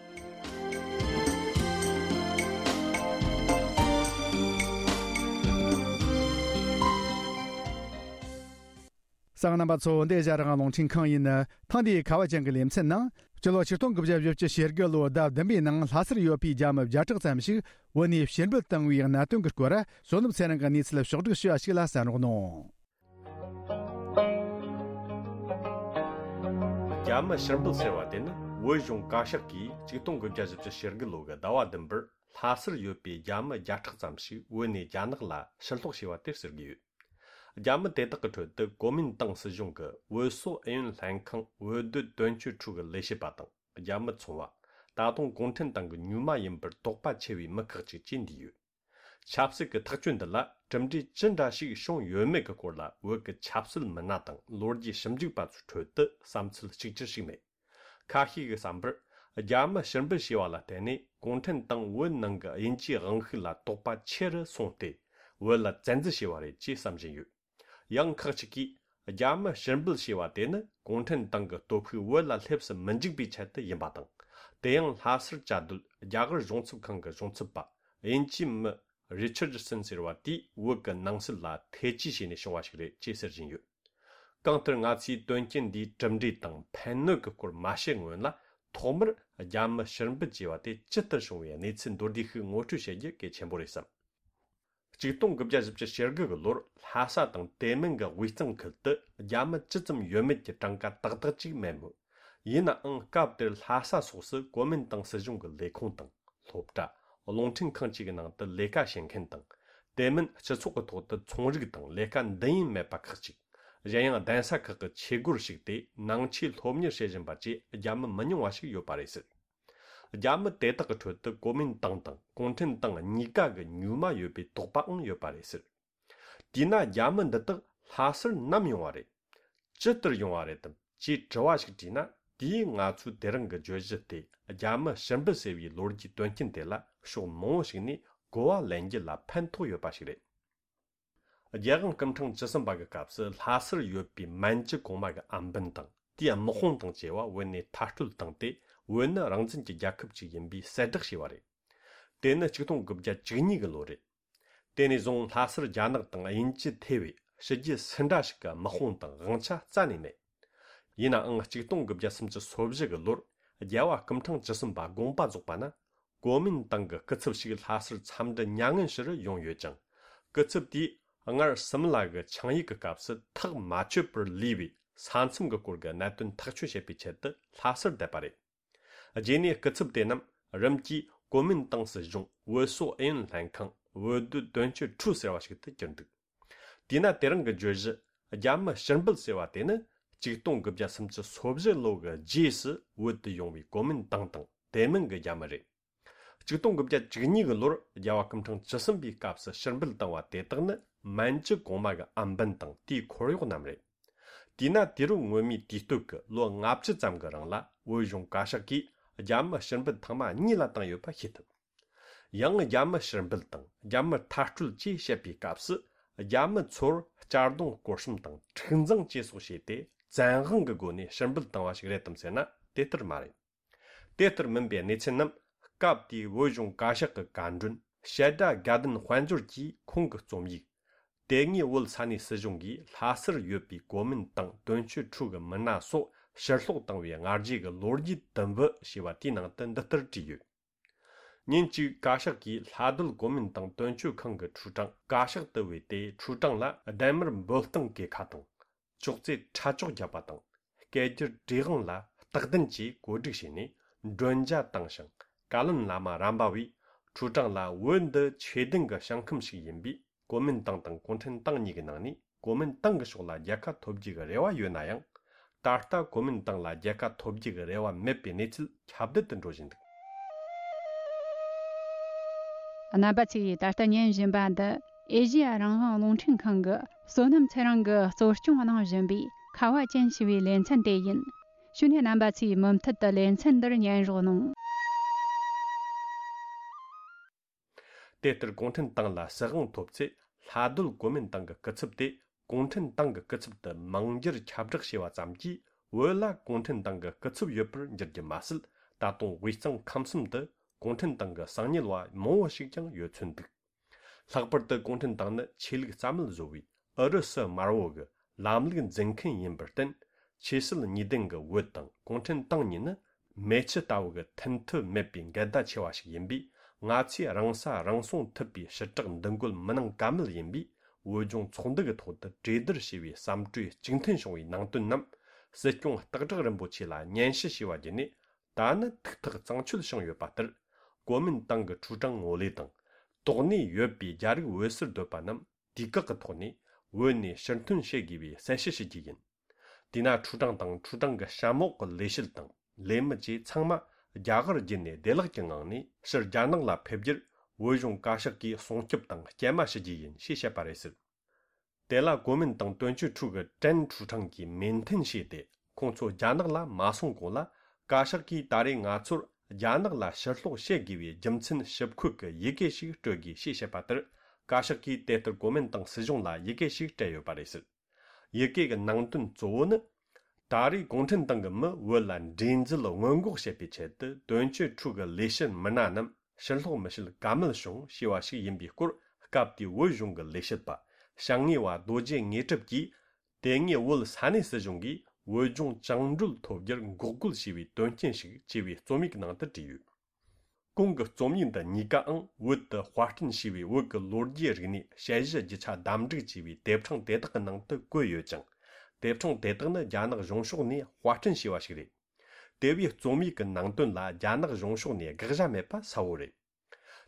གསན་མཁན་རྣམ་པ་ཚོ། འདི་ཨེ་ཤ་ཡ་རང་དབང་རླུང་འཕྲིན་ཁང་ཡིན། ཐེངས་འདིའི་ཁ་བ་ཅན་གྱི་ལེ་ཚན་ནང་། སྤྱི་ལོ་ཆིག་སྟོང་དགུ་བརྒྱ་བཞི་བཅུ་ཞེ་དགུ་ལོའི་ཟླ་བདུན་པའི་ནང་ལྷ་སར་ཡོད་པའི་རྒྱ་མི་བརྒྱ་ཕྲག་ཙམ་ཞིག་བོད་ནས་ཕྱིར་འབུད་བཏང་བའི་གནད་དོན་གྱི་སྐོར། བསོད་ནམས་ཚེ་རིང་གིས་གནས་ཚུལ་ཕྱོགས་བསྒྲིགས་ཞུས་པ་ཞིག་ལ་གསན་རོགས་གནང་། རྒྱ་མི་ཕྱིར་འབུད་ཟེར་བ་དེ་ནི། བོད་གཞུང་བཀའ་ཤག་གིས་ཆིག་སྟོང་དགུ་བརྒྱ་བཞི་བཅུ་ཞེ་དགུ་ལོ་གི་ཟླ་བ་བདུན་པར་ལྷ་སར་ཡོད་པའི་རྒྱ་མི་བརྒྱ་ཕྲག་ཙམ་ཞིག་བོད་ནས་རྒྱ་ནག་ལ་ཕྱིར་སློག་བྱས་པ་དེ་ཟེར་གྱི་ཡོད། རྒྱ་མི་དེ་དག་གི་ཁྲོད་དུ་གོ་མིན་ཏང་སྲིད་གཞུང་གི་བོད་སོག་ཨུ་ཡོན་ལྷན་ཁང་བོད་སྡོད་དོན་གཅོད་ཁྲུའུ་གི་ལས་བྱེད་པ་དང་། རྒྱ་མི་ཚོང་བ། ད་དུང་གུང་ཁྲན་ཏང་གི་མྱུལ་མ་ཡིན་པར་དོགས་པ་ཆེ་བའི་མི་ཁག་ཅིག་བཅས་འདུས་ཡོད། ཆབ་སྲིད་ཀྱི་ཐག་གཅོད་འདི་ལ་གྲུབ་འབྲས་ཅི་འདྲ་ཞིག་བྱུང་ཡོད་མེད་ཀྱི་སྐོར་ལ། བོད་ཀྱི་ཆབ་སྲིད་མི་སྣ་དང་ལོ་རྒྱུས་ཞིབ་འཇུག་པ་ཚོའི་ཁྲོད་དུ་བསམ་ཚུལ་གཅིག་གྱུར་ཞིག་མེད། ཁ་ཤས་ཀྱི་བསམ་པར། རྒྱ་མི་ཕྱིར་འབུད་བྱས་པ་ལ་བརྟེན་ནས། གུང་ཁྲན་ཏང་བོད་ནང་གི་དབྱིན་ཇིའི་དབང་ཤུགས་ལ་དོགས་པ་ཆེ་རུ་སོང་སྟེ། བོད་ལ་བཙན་འཛུལ་བྱས་པ་རེད་ཅེས་བསམ་བཞིན་ཡོད། ཡང་ཁག་ཅིག་གིས། རྒྱ་མི་ཕྱིར་འབུད་བྱས་པ་དེ་ནི་གུང་ཁྲན་ཏང་གི་སྟོབས་ཤུགས་བོད་ལ་སླེབས་སུ་མི་འཇུག་པའི་ཆེད་དུ་ཡིན་པ་དང་། དེ་ཡང་ལྷ་སར་བཅའ་སྡོད་རྒྱ་གར་གཞུང་ཚབ་ཁང་གི་གཞུང་ཚབ་པ་དབྱིན་ཇིའི་མི་རི་ཆར་ཌི་སན་ཟེར་བ་དེས་བོད་ཀྱི་ནང་སྲིད་ལ་ཐེ་ཇུས་བྱས་ནས་བྱུང་བ་ཞིག་རེད་ཅེས་ཟེར་བཞིན་ཡོད། གང་ལྟར་ང་ཚོས་དོན་རྐྱེན་འདིའི་གྲུབ་འབྲས་དང་ཕན་གནོད་ཀྱི་སྐོར་མ་བཤད་སྔོན་ལ། ཐོག་མར་རྒྱ་མི་ཕྱིར་འབུད་བྱས་པ་དེ་ཇི་ལྟར་བྱུང་བའི་གནས་ཚུལ་མདོར་བསྡུས་ཤིག་ངོ་སྤྲོད་བྱེད་རྒྱུ་གལ་ཆེན་པོ་རེད་བསམ། ཆིག་སྟོང་དགུ་བརྒྱ་བཞི་བཅུ་ཞེ་དགུ་གི་ལོར་ལྷ་ས་དང་དེ་མིན་གྱི་དབུས་གཙང་ཁུལ་དུ་རྒྱ་མི་ཅི་ཙམ་ཡོད་མེད་ཀྱི་གྲངས་ཀ་ཏག་ཏག་ཅིག་མེད་མོད། ཡིན་ནའང་སྐབས་དེར་ལྷ་ས་སོགས་སུ་གོ་མིན་ཏང་སྲིད་གཞུང་གི་ལས་ཁུངས་དང་། སློབ་གྲྭ། རླུང་འཕྲིན་ཁང་བཅས་ཀྱི་ནང་དུ་ལས་ཀ་བྱེད་མཁན་དང་། དེ་མིན་སྤྱི་ཚོགས་ཀྱི་ཐོག་ཏུ་ཚོང་རིགས་དང་ལས་ཀ་འདི་ཡིན་མེད་པ་ཁག་ཅིག་གཞན་ཡང་གདན་ས་ཁག་གི་ཆོས་སྒོར་ཞུགས་ཏེ་ནང་ཆོས་སློབ་གཉེར་བྱེད་བཞིན་པ་བཅས་རྒྱ་མི་མི་ཉུང་བ་ཞིག་ཡོད་པ་རེད་ཟེར། རྒྱ་མི་དེ་དག་གི་ཁྲོད་དུ་གོ་མིན་ཏང་དང་གུང་ཁྲན་ཏང་གཉིས་ཀ་གི་མྱུལ་མ་ཡོད་པའི་དོགས་པའང་ཡོད་པ་རེད་ཟེར། དེས་ན་རྒྱ་མི་འདི་དག་ལྷ་སར་ནམ་ཡོང་བ་རེད། ཇི་ལྟར་ཡོང་བ་རེད་དམ་ཅེས་དྲི་བ་ཞིག་དྲིས་ན། དེས་ང་ཚོས་དེ་རིང་གི་བརྗོད་གཞི་སྟེ། རྒྱ་མི་ཕྱིར་འབུད་ཟེར་བའི་ལོ་རྒྱུས་དོན་རྐྱེན་དེ་ལ་ཕྱོགས་མང་བོ་ཞིག་ནས་གོ་བ་ལེན་རྒྱུ་ལ་ཕན་ཐོགས་ཡོད་པ་ཞིག་རེད། རྒྱལ་དབང་སྐུ་ཕྲེང་བཅུ་གསུམ་པ་གི་སྐབས་སུ་ལྷ་སར་ཡོད་པའི་མན་ཇུ་གོང་མ་གི་ཨམ་བན་དང་དེའི་དམག་དཔུང་དང་བཅས་པ་བོད་ནས་མཐར་སྐྲོད་བཏང་སྟེ། བོད་ནི་རང་བཙན་གྱི་རྒྱལ་ཁབ་ཅིག་ཡིན་པའི་གསལ་བསྒྲགས་བྱས་པ་རེད། དེ་ནི་ཆིག་སྟོང་དགུ་བརྒྱ་བཅུ་གཉིས་གི་ལོ་རེད། དེ་ནས་བཟུང་ལྷ་སར་རྒྱ་ནག་དང་དབྱིན་ཇི་ཐེ་བའི་ཕྱི་རྒྱལ་སུ་འདྲ་ཞིག་གི་དམག་དཔུང་དང་དབང་ཆ་རྩ་ནས་མེད། ཡིན་ནའང་ཆིག་སྟོང་དགུ་བརྒྱ་སུམ་ཅུ་སོ་བཞི་གི་ལོར་རྒྱལ་བ་སྐུ་ཕྲེང་བཅུ་གསུམ་པ་དགོངས་པ་རྫོགས་པ་ན། གོ་མིན་ཏང་གི་སྐུ་ཚབ་ཞིག་ལྷ་སར་འཚམས་འདྲི་མྱ་ངན་ཞུ་རུ་ཡོང་ཡོད་ཅིང་། སྐུ་ཚབ་དེས་སྔར་སིམ་ལ་གི་ཆིངས་ཡིག་གི་སྐབས་སུ་ཐག་མ་ཆོད་པར་ལུས་པའི་ས་མཚམས་ཀྱི་སྐོར་གྱི་གནད་དོན་ཐག་གཅོད་བྱེད་པའི་ཆེད་དུ་ལྷ་སར་བསྡད་པ་རེད། རྗེས་ནས་སྐུ་ཚབ་དེ་རྣམས་རིམ་གྱིས་གོ་མིན་ཏང་སྲིད་གཞུང་བོད་སོག་ཨུ་ཡོན་ལྷན་ཁང་བོད་སྡོད་དོན་གཅོད་ཁྲུའུ་ཟེར་བ་ཞིག་ཏུ་གྱུར་འདུག་དེས་ན་དེ་རིང་གི་བརྗོད་གཞི་རྒྱ་མི་ཕྱིར་འབུད་ཟེར་བ་དེ་ནི་ཆིག་སྟོང་དགུ་བརྒྱ་སུམ་ཅུ་སོ་བཞི་ལོ་གི་རྗེས་སུ་བོད་དུ་ཡོང་བའི་གོ་མིན་ཏང་དང་དེ་མིན་གྱི་རྒྱ་མི་རེད། ཆིག་སྟོང་དགུ་བརྒྱ་བཅུ་གཉིས་གི་ལོར་རྒྱལ་བ་སྐུ་ཕྲེང་བཅུ་གསུམ་པའི་སྐབས་སུ་ཕྱིར་འབུད་བཏང་བ་དེ་དག་ནི་མན་ཇུ་གོང་མ་གི་ཨམ་བན་དང་དེའི་འཁོར་གཡོག་རྣམས་རེད། དེས་ན་དུས་རབས་སྔོན་མའི་དུས་སྟོད་ཀྱི་ལོ་ལྔ་བཅུ་ཙམ་གྱི་རིང་ལ་བོད་གཞུང་བཀའ་ཤག་གིས་རྒྱ་མི་ཕྱིར་འབུད་ཐེངས་མ་གཉིས་ལ་བཏང་ཡོད་པ་ཤེས་ཐུབ། ཡང་རྒྱ་མི་ཕྱིར་འབུད་དང་རྒྱ་མི་མཐར་སྐྲོད་ཅེས་བཤད་པའི་སྐབས་སུ་རྒྱ་མི་ཚོར་གཅར་རྡུང་སྐོར་གཤོམ་དང་འཁྲུག་འཛིང་བཅས་སོགས་བྱས་ཏེ་བཙན་དབང་གི་སྒོ་ནས་ཕྱིར་འབུད་བཏང་བ་ཞིག་རེད་དམ་ཟེར་ན་དེ་ལྟར་མ་རེད། དེ་ལྟར་མིན་པའི་གནས་ཚུལ་རྣམས་སྐབས་དེའི་བོད་གཞུང་བཀའ་ཤག་གི་བཀའ་མགྲོན་བཤད་སྒྲ་དགའ་ལྡན་དཔལ་འབྱོར་གྱིས་ཁོང་གི་རྩོམ་ཡིག་དེ་སྔའི་བོད་ས་གནས་སྲིད་གཞུང་གིས་ལྷ་སར་ཡོད་པའི་གོ་མིན་ཏང་དོན་གཅོད་ཁྲུའུ་གི་མི་སྣ་སོགས་ཕྱིར་སློག་བཏང་བའི་སྔ་རྗེས་ཀྱི་ལོ་རྒྱུས་དུམ་བུ་ཞེས་པ་དེའི་ནང་དུ་འདི་ལྟར་བྲིས་ཡོད། ཉིན་གཅིག་བཀའ་ཤག་གིས་ལྷ་སྡོད་གོ་མིན་ཏང་དོན་གཅོད་ཁང་གི་ཁྲུའུ་ཀྲང་བཀའ་ཤག་ཏུ་བོས་ཏེ། ཁྲུའུ་ཀྲང་ལ་ལྡན་མར་འབོད་སྟངས་གྱི་ཁ་དང་། ཅོག་ཙེ་ཁྲ་ཅོག་བརྒྱབ་པ་དང་། སྐད་སྒྱུར་བྲིས་དབང་ལ་རྟགས་ལྡན་གྱིས་བཀོད་སྒྲིག་བྱས་ནས་མགྲོན་ཇ་བཏང་ཞིང་། བཀའ་བློན་བླ་མ་རམ་པ་བས་ཁྲུའུ་ཀྲང་ལ་བོད་འདི་ཆོས་ལྡན་གྱི་ཞིང་ཁམས་ཤིག་ཡིན་པས། གོ་མིན་ཏང་དང་གུང་ཁྲན་ཏང་གཉིས་ཀྱི་ནང་ནས་གོ་མིན་ཏང་གི་ཕྱོགས་ལ་རྒྱལ་ཁ་ཐོབ་རྒྱུ་གི་རེ་བ་ཡོད་ན་ཡང་། ད་ལྟ་གོ་མིན་ཏང་ལ་རྒྱལ་ཁ་ཐོབ་རྒྱུ་གི་རེ་བ་མེད་པའི་གནས་ཚུལ་ཁྱབ་གདལ་དུ་འགྲོ་བཞིན་འདུག་རྣམ་པ་ཚོས་ད་ལྟ་ཉན་བཞིན་པ་འདི་ཨེ་ཤེ་ཡ་རང་དབང་རླུང་འཕྲིན་ཁང་གི་བསོད་ནམས་ཚེ་རིང་གིས་གཙོ་སྐྱོང་གནང་བཞིན་པའི་ཁ་བ་ཅན་ཞེས་པའི་ལེ་ཚན་དེ་ཡིན། ཞུ་ནས་རྣམ་པ་ཚོས་མུ་མཐུད་དུ་ལེ་ཚན་འདིར་ཉན་རོགས་གནང་། དེ་ལྟར་གུང་ཁྲན་ཏང་ལ་སྲིད་དབང་ཐོབ་ཚེ། ལྷ་སྡོད་གོ་མིན་ཏང་གི་སྐུ་ཚབ་དེ་གུང་ཁྲན་ཏང་གི་སྐུ་ཚབ་ཏུ་མིང་བསྒྱུར་ཁྱབ་བསྒྲགས་བྱས་པ་ཙམ་གྱིས། བོད་ལ་གུང་ཁྲན་ཏང་གི་སྐུ་ཚབ་ཡོད་པར་འགྱུར་རྒྱུ་མ་ཟད། ད་དུང་དབུས་གཙང་ཁམས་གསུམ་དུ་གུང་ཁྲན་ཏང་གི་གསང་ཉུལ་བ་མང་བོ་ཞིག་ཀྱང་ཡོད་ཚོད་འདུག། ལྷག་པར་དུ་གུང་ཁྲན་ཏང་ནི་ཆོས་ལུགས་རྩ་མེད་བཟོ་བའི་ཨུ་རུ་སུ་དམར་བོ་གི་ལམ་ལུགས་འཛིན་མཁན་ཡིན་པར་བརྟེན། ཆོས་སྲིད་གཉིས་ལྡན་གྱི་བོད་དང་གུང་ཁྲན་ཏང་གཉིས་ནི་མེ་ཆུ་ལྟ་བུ་གི་མཐུན་ཐབས་མེད་པའི་འགལ་ཟླ་ཆེ་བ་ཞིག་ཡིན་པས། ང་ཚོས་རང་ས་རང་སྲུང་ཐུབ་པའི་ཞི་དྲག་འདུ་འགོད་མི་གནང་ཀ་མེད་ཡིན་པས། བོད་ལྗོངས་ཚོགས་འདུ་གི་ཐོག་ཏུ་གྲོས་བསྡུར་བྱས་པའི་བསམ་གྲོས་གཅིག་མཐུན་བྱུང་བའི་ནང་དོན་རྣམས་སྲིད་སྐྱོང་སྟག་བྲག་རིན་པོ་ཆེ་ལ་སྙན་ཞུ་ཞུས་པ་བརྒྱུད་ནས། ད་ནི་ཐུགས་ཐག་གཙང་ཆོད་བྱུང་ཡོད་པ་ལྟར། གོ་མིན་ཏང་གི་ཁྲུའུ་ཀྲང་ངོ་ལེ་དང་། དོགས་གནས་ཡོད་པའི་རྒྱ་རིགས་བོད་སར་སྡོད་པ་རྣམས་དུས་བཀག་གི་ཐོག་ནས་བོད་ནས་ཕྱིར་ཐོན་བྱེད་དགོས་པའི་གསལ་བཤད་ཞུ་རྒྱུ་ཡིན། དེས་ན་ཁྲུའུ་ཀྲང་དང་ཁྲུའུ་ཀྲང་གི་གཤམ་འོག་གི་ལས་བྱེད་དང་ལས་མི་བཅས་ཚང་མ་རྒྱ་གར་བརྒྱུད་ནས་བདེ་བླག་གི་ངང་ནས་ཕྱིར་རྒྱ་ནག་ལ་ཕེབས་རྒྱུར་བོད་གཞུང་བཀའ་ཤག་གིས་སྲུང་སྐྱོབ་དང་སྐྱེལ་མ་ཞུ་རྒྱུ་ཡིན་ཞེས་བཤད་པ་རེད་ཟེར། དེ་ལ་གོ་མིན་ཏང་དོན་གཅོད་ཁྲུའུ་གི་ཀྲན་ཁྲུའུ་ཀྲང་གིས་མོས་མཐུན་བྱས་ཏེ། ཁོང་ཚོ་རྒྱ་ནག་ལ་མ་སོང་གོང་ལ། བཀའ་ཤག་གིས་ད་རེས་ང་ཚོར་རྒྱ་ནག་ལ་ཕྱིར་སློག་བྱེད་དགོས་པའི་རྒྱུ་མཚན་ཞིབ་འཁོད་ཀྱི་ཡི་གེ་ཞིག་སྤྲོད་དགོས་ཞེས་བཤད་པ་ལྟར། བཀའ་ཤག་གིས་དེ་ལྟར་གོ་མིན་ཏང་སྲིད་གཞུང་ལ་ཡི་གེ་ཞིག་སྤྲད་ཡོད་པ་རེད་ཟེར། ཡི་གེ་གི་ནང་དོན་གཙོ་བོ་ནི། ད་རེས་གུང་ཁྲན་ཏང་གི་མི་བོད་ལ་འདྲེས་འཛུལ་སྔོན་འགོག་བྱེད་པའི་ཆེད་དུ། དོན་གཅོད་ཁྲུའུ་གི་ལས་བྱེད་མི་སྣ་རྣམས་ཕྱིར་སློག་མི་བྱེད་ཀ་མེད་བྱུང་ཞེས་པ་ཞིག་ཡིན་པའི་སྐོར། སྐབས་དེའི་བོད་གཞུང་གི་ལས་བྱེད་པ་ཞང་ངེ་བ་རྡོ་རྗེ་དངོས་གྲུབ་ཀྱིས། དེ་སྔའི་བོད་ས་གནས་སྲིད་གཞུང་གིས་བོད་ལྗོངས་བཅིངས་འགྲོལ་ཐོབ་རྒྱུར་འགོག་རྒོལ་བྱས་པའི་དོན་རྐྱེན་ཞིག་ཅེས་པའི་རྩོམ་ཡིག་ནང་དུ་བྲིས་ཡོད། གོང་གི་རྩོམ་ཡིག་འདི་གཉིས་ཀའང་བོད་དུ་དཔར་སྐྲུན་བྱས་པའི་བོད་ཀྱི་ལོ་རྒྱུས་རིག་གནས་དཔྱད་གཞི་རྒྱུ་ཆ་བདམས་བསྒྲིགས་བྱས་པའི་དེབ་ཕྲེང་དེ་དག་གི་ནང་དུ་བཀོད་ཡོད་ཅིང་། དེབ་ཕྲེང་དེ་དག་ནི་རྒྱ་ནག་གཞུང་ཕྱོགས་ནས་དཔར་སྐྲུན་བྱས་པ་ཞིག་རེད། དེ་བས་རྩོམ་ཡིག་གི་ནང་དོན་ལ་རྒྱ་ནག་གཞུང་ཕྱོགས་ནས་དགག་བྱ་མེད་པ་གསལ་བོ་རེད།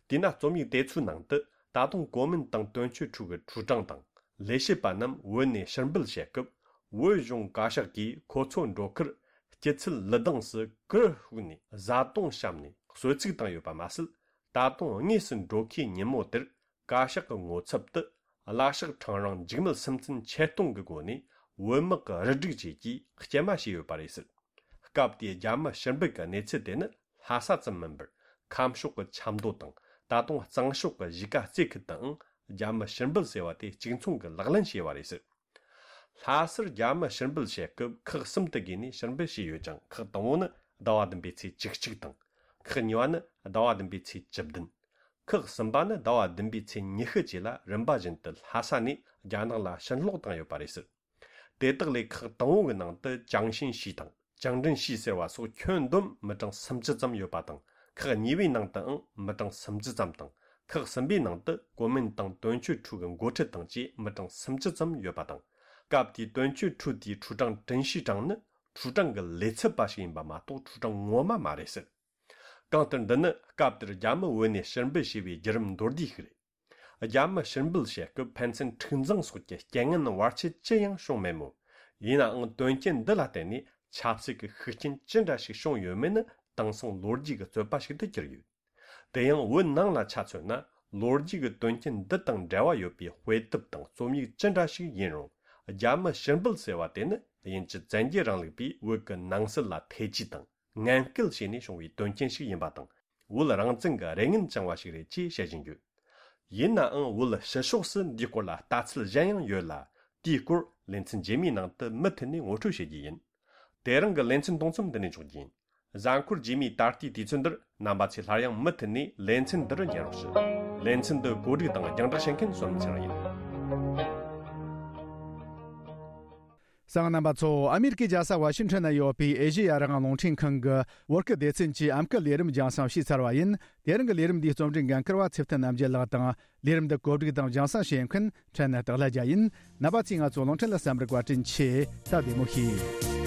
དེས་ན་རྩོམ་ཡིག་དེ་ཚོའི་ནང་དུ་ད་དུང་གོ་མིན་ཏང་དོན་གཅོད་ཁྲུའུ་གི་ཁྲུའུ་ཀྲང་དང་ལས་བྱེད་པ་རྣམས་བོད་ནས་ཕྱིར་འབུད་བྱེད་སྐབས། བོད་གཞུང་བཀའ་ཤག་གིས་ཁོ་ཚོ་འགྲོ་ཁར་སྐྱིད་ཚལ་ལི་སྡིངས་སུ་གུར་ཕུབ་ནས་བཟའ་བཏུང་བཤམས་ནས་གསོལ་ཚིགས་བཏང་ཡོད་པ་མ་ཟད། ད་དུང་དངོས་སུ་འགྲོ་ཁའི་ཉིན་མོ་དེར་བཀའ་ཤག་གི་ངོ་ཚབ་ཏུ་བླ་ཤག་ཁྲང་རིང་འཇིགས་མེད་སེམས་ཅན་ཆེད་གཏོང་གི་སྒོ་ནས་བོད་དམག་གི་རུ་སྒྲིག་བཅས་ཀྱིས་སྐྱེལ་མ་བྱས་ཡོད་པ་རེད་ཟེར། སྐབས་དེའི་རྒྱ་མི་ཕྱིར་འབུད་ཀྱི་གནས་ཚུལ་དེ་ནི་ལྷ་ས་ཙམ་མིན་པར། ཁམས་ཕྱོགས་ཀྱི་ཆབ་མདོ་དང་། ད་དུང་གཙང་ཕྱོགས་ཀྱི་གཞིས་ཀ་རྩེ་ཁུལ་དུའང་རྒྱ་མི་ཕྱིར་འབུད་ཟེར་བ་དེ་གཅིག་མཚུངས་ཀྱི་ལག་ལེན་བྱས་པ་རེད་ཟེར། ལྷ་སར་རྒྱ་མི་ཕྱིར་འབུད་བྱེད་སྐབས་ཁག་གསུམ་དུ་བགོས་ནས་ཕྱིར་འབུད་བྱས་ཡོད་ཅིང་། ཁག་དང་པོ་ནི་ཟླ་བ་བདུན་པའི་ཚེས་བཅུ་གཅིག་དང་། ཁག་གཉིས་པ་ནི་ཟླ་བ་བདུན་པའི་ཚེས་བཅུ་བདུན། ཁག་གསུམ་པ་ནི་ཟླ་བ་བདུན་པའི་ཚེས་ཉི་ཤུ་བཅས་ལ་རིམ་པ་བཞིན་དུ་ལྷ་ས་ནས་རྒྱ་ནག་ལ་ཕྱིར་སློག་བཏང་ཡོད་པ་རེད་ཟེར། དེ་དག་ལས་ཁག་དང་པོ་གི་ནང་དུ་ཅང་ཤིན་ཤི་དང་ཅང་ཀྲིན་ཤི་ཟེར་བ་སོགས་ཁྱོན་བསྡོམས་མི་གྲངས་སུམ་ཅུ་ཙམ་ཡོད་པ་དང་། ཁག་གཉིས་པའི་ནང་དུའང་མི་གྲངས་སུམ་ཅུ་ཙམ་དང་། ཁག་གསུམ་པའི་ནང་དུ་གོ་མིན་ཏང་དོན་གཅོད་ཁྲུའུ་གི་འགོ་ཁྲིད་དང་བཅས་མི་གྲངས་སུམ་ཅུ་ཙམ་ཡོད་པ་དང་། སྐབས་དེའི་དོན་གཅོད་ཁྲུའུ་དེའི་ཁྲུའུ་ཀྲང་ཀྲིན་ཤི་ཀྲང་ནི་ཁྲུའུ་ཀྲང་གི་ལས་ཚབ་པ་ཞིག་ཡིན་པ་མ་གཏོགས་ཁྲུའུ་ཀྲང་ངོ་མ་མ་རེད་ཟེར། གང་ལྟར་འདི་ནི་སྐབས་དེར་རྒྱ་མི་བོད་ནས་ཕྱིར་འབུད་བྱས་པའི་བརྒྱུད་རིམ་མདོར་བསྡུས་ཤིག་རེད། རྒྱ་མི་ཕྱིར་འབུད་བྱེད་སྐབས་ཕན་ཚུན་འཁྲུག་འཛིང་སོགས་ཀྱི་རྐྱེན་ངན་བར་ཆད་ཅི་ཡང་བྱུང་མེད་མོད། ཡིན་ནའང་དོན་རྐྱེན་འདི་ལ་བརྟེན་ནས་ཆབ་སྲིད་ཀྱི་ཤུགས་རྐྱེན་ཅི་འདྲ་ཞིག་བྱུང་ཡོད་མེད་ནི་དེང་སང་ལོ་རྒྱུས་ཀྱི་རྩོད་པ་ཞིག་ཏུ་གྱུར་ཡོད། དེ་ཡང་བོད་ནང་ལ་ཆ་མཚོན་ན། ལོ་རྒྱུས་ཀྱི་དོན་རྐྱེན་འདི་དང་འབྲེལ་བ་ཡོད་པའི་དཔེ་དེབ་དང་རྩོམ་ཡིག་ཅི་འདྲ་ཞིག་ཡིན་རུང་། རྒྱ་མི་ཕྱིར་འབུད་ཟེར་བ་དེ་ནི་དབྱིན་ཇི་བཙན་རྒྱལ་རིང་ལུགས་པས་བོད་ཀྱི་ནང་སྲིད་ལ་ཐེ་ཇུས་དང་ངན་སྐུལ་བྱས་ནས་བྱུང་བའི་དོན་རྐྱེན་ཞིག་ཡིན་པ་དང་། བོད་རང་བཙན་གྱི་རེ་ངན་བཅངས་པ་ཞིག་རེད་ཅེས་བཤད་བཞིན་ཡོད། ཡིན་ནའང་བོད་ཕྱི་ཕྱོགས་སུ་འདིའི་སྐོར་ལ་ལྟ་ཚུལ་གཞན་ཡང་ཡོད་ལ། དེའི་སྐོར་ལེ་ཚན་རྗེས་མའི་ནང་དུ་མུ་མཐུད་ནས་ངོ་སྤྲོད་བྱེད་རྒྱུ་ཡིན། དེ་རིང་གི་ལེ་ཚན་གཏོང་མཚམས་འདི་ནས་འཇོག་རྒྱུ་ཡིན། གཟའ་འཁོར་རྗེས་མའི་ད་ལྟའི་དུས་ཚོད་འདིར་རྣམ་པ་ཚོས་སླར་ཡང་མུ་མཐུད་ནས་ལེ་ཚན་འདི་རུ་ཉན་རོགས་ཞུ། ལེ་ཚན་འདི་གོ་སྒྲིག་དང་རྒྱང་བསྒྲགས་བྱེད་མཁན་བསོད་ནམས་ཚེ་རིང་ཡིན། གསན་མཁན་རྣམ་པ་ཚོ། ཨ་མེ་རི་ཀའི་རྒྱལ་ས་ཝ་ཤིང་ཊོན་ན་ཡོད་པའི་ཨེ་ཤེ་ཡ་རང་དབང་རླུང་འཕྲིན་ཁང་གི་བོད་སྐད་སྡེ་ཚན་གྱི་ཨམ་སྐད་ལས་རིམ་རྒྱང་སྲིང་ཞུས་ཚར་བ་ཡིན། དེ་རིང་གི་ལས་རིམ་འདིའི་རྩོམ་སྒྲིག་འགན་འཁུར་བ་ཚེ་བརྟན་རྣམ་རྒྱལ་ལགས་དང་། ལས་རིམ་འདི་གོ་སྒྲིག་དང་རྒྱང་སྲིང་བྱེད་མཁན་ཕྲན་ནི་སྟག་ལྷ་རྒྱལ་ཡིན། རྣམ་པ་ཚོས་ང་ཚོའི་རླུང་འཕྲིན་ལ་གསན་པར་བཀའ་དྲིན་ཆེ། ད་བདེ་མོ་བྱོས།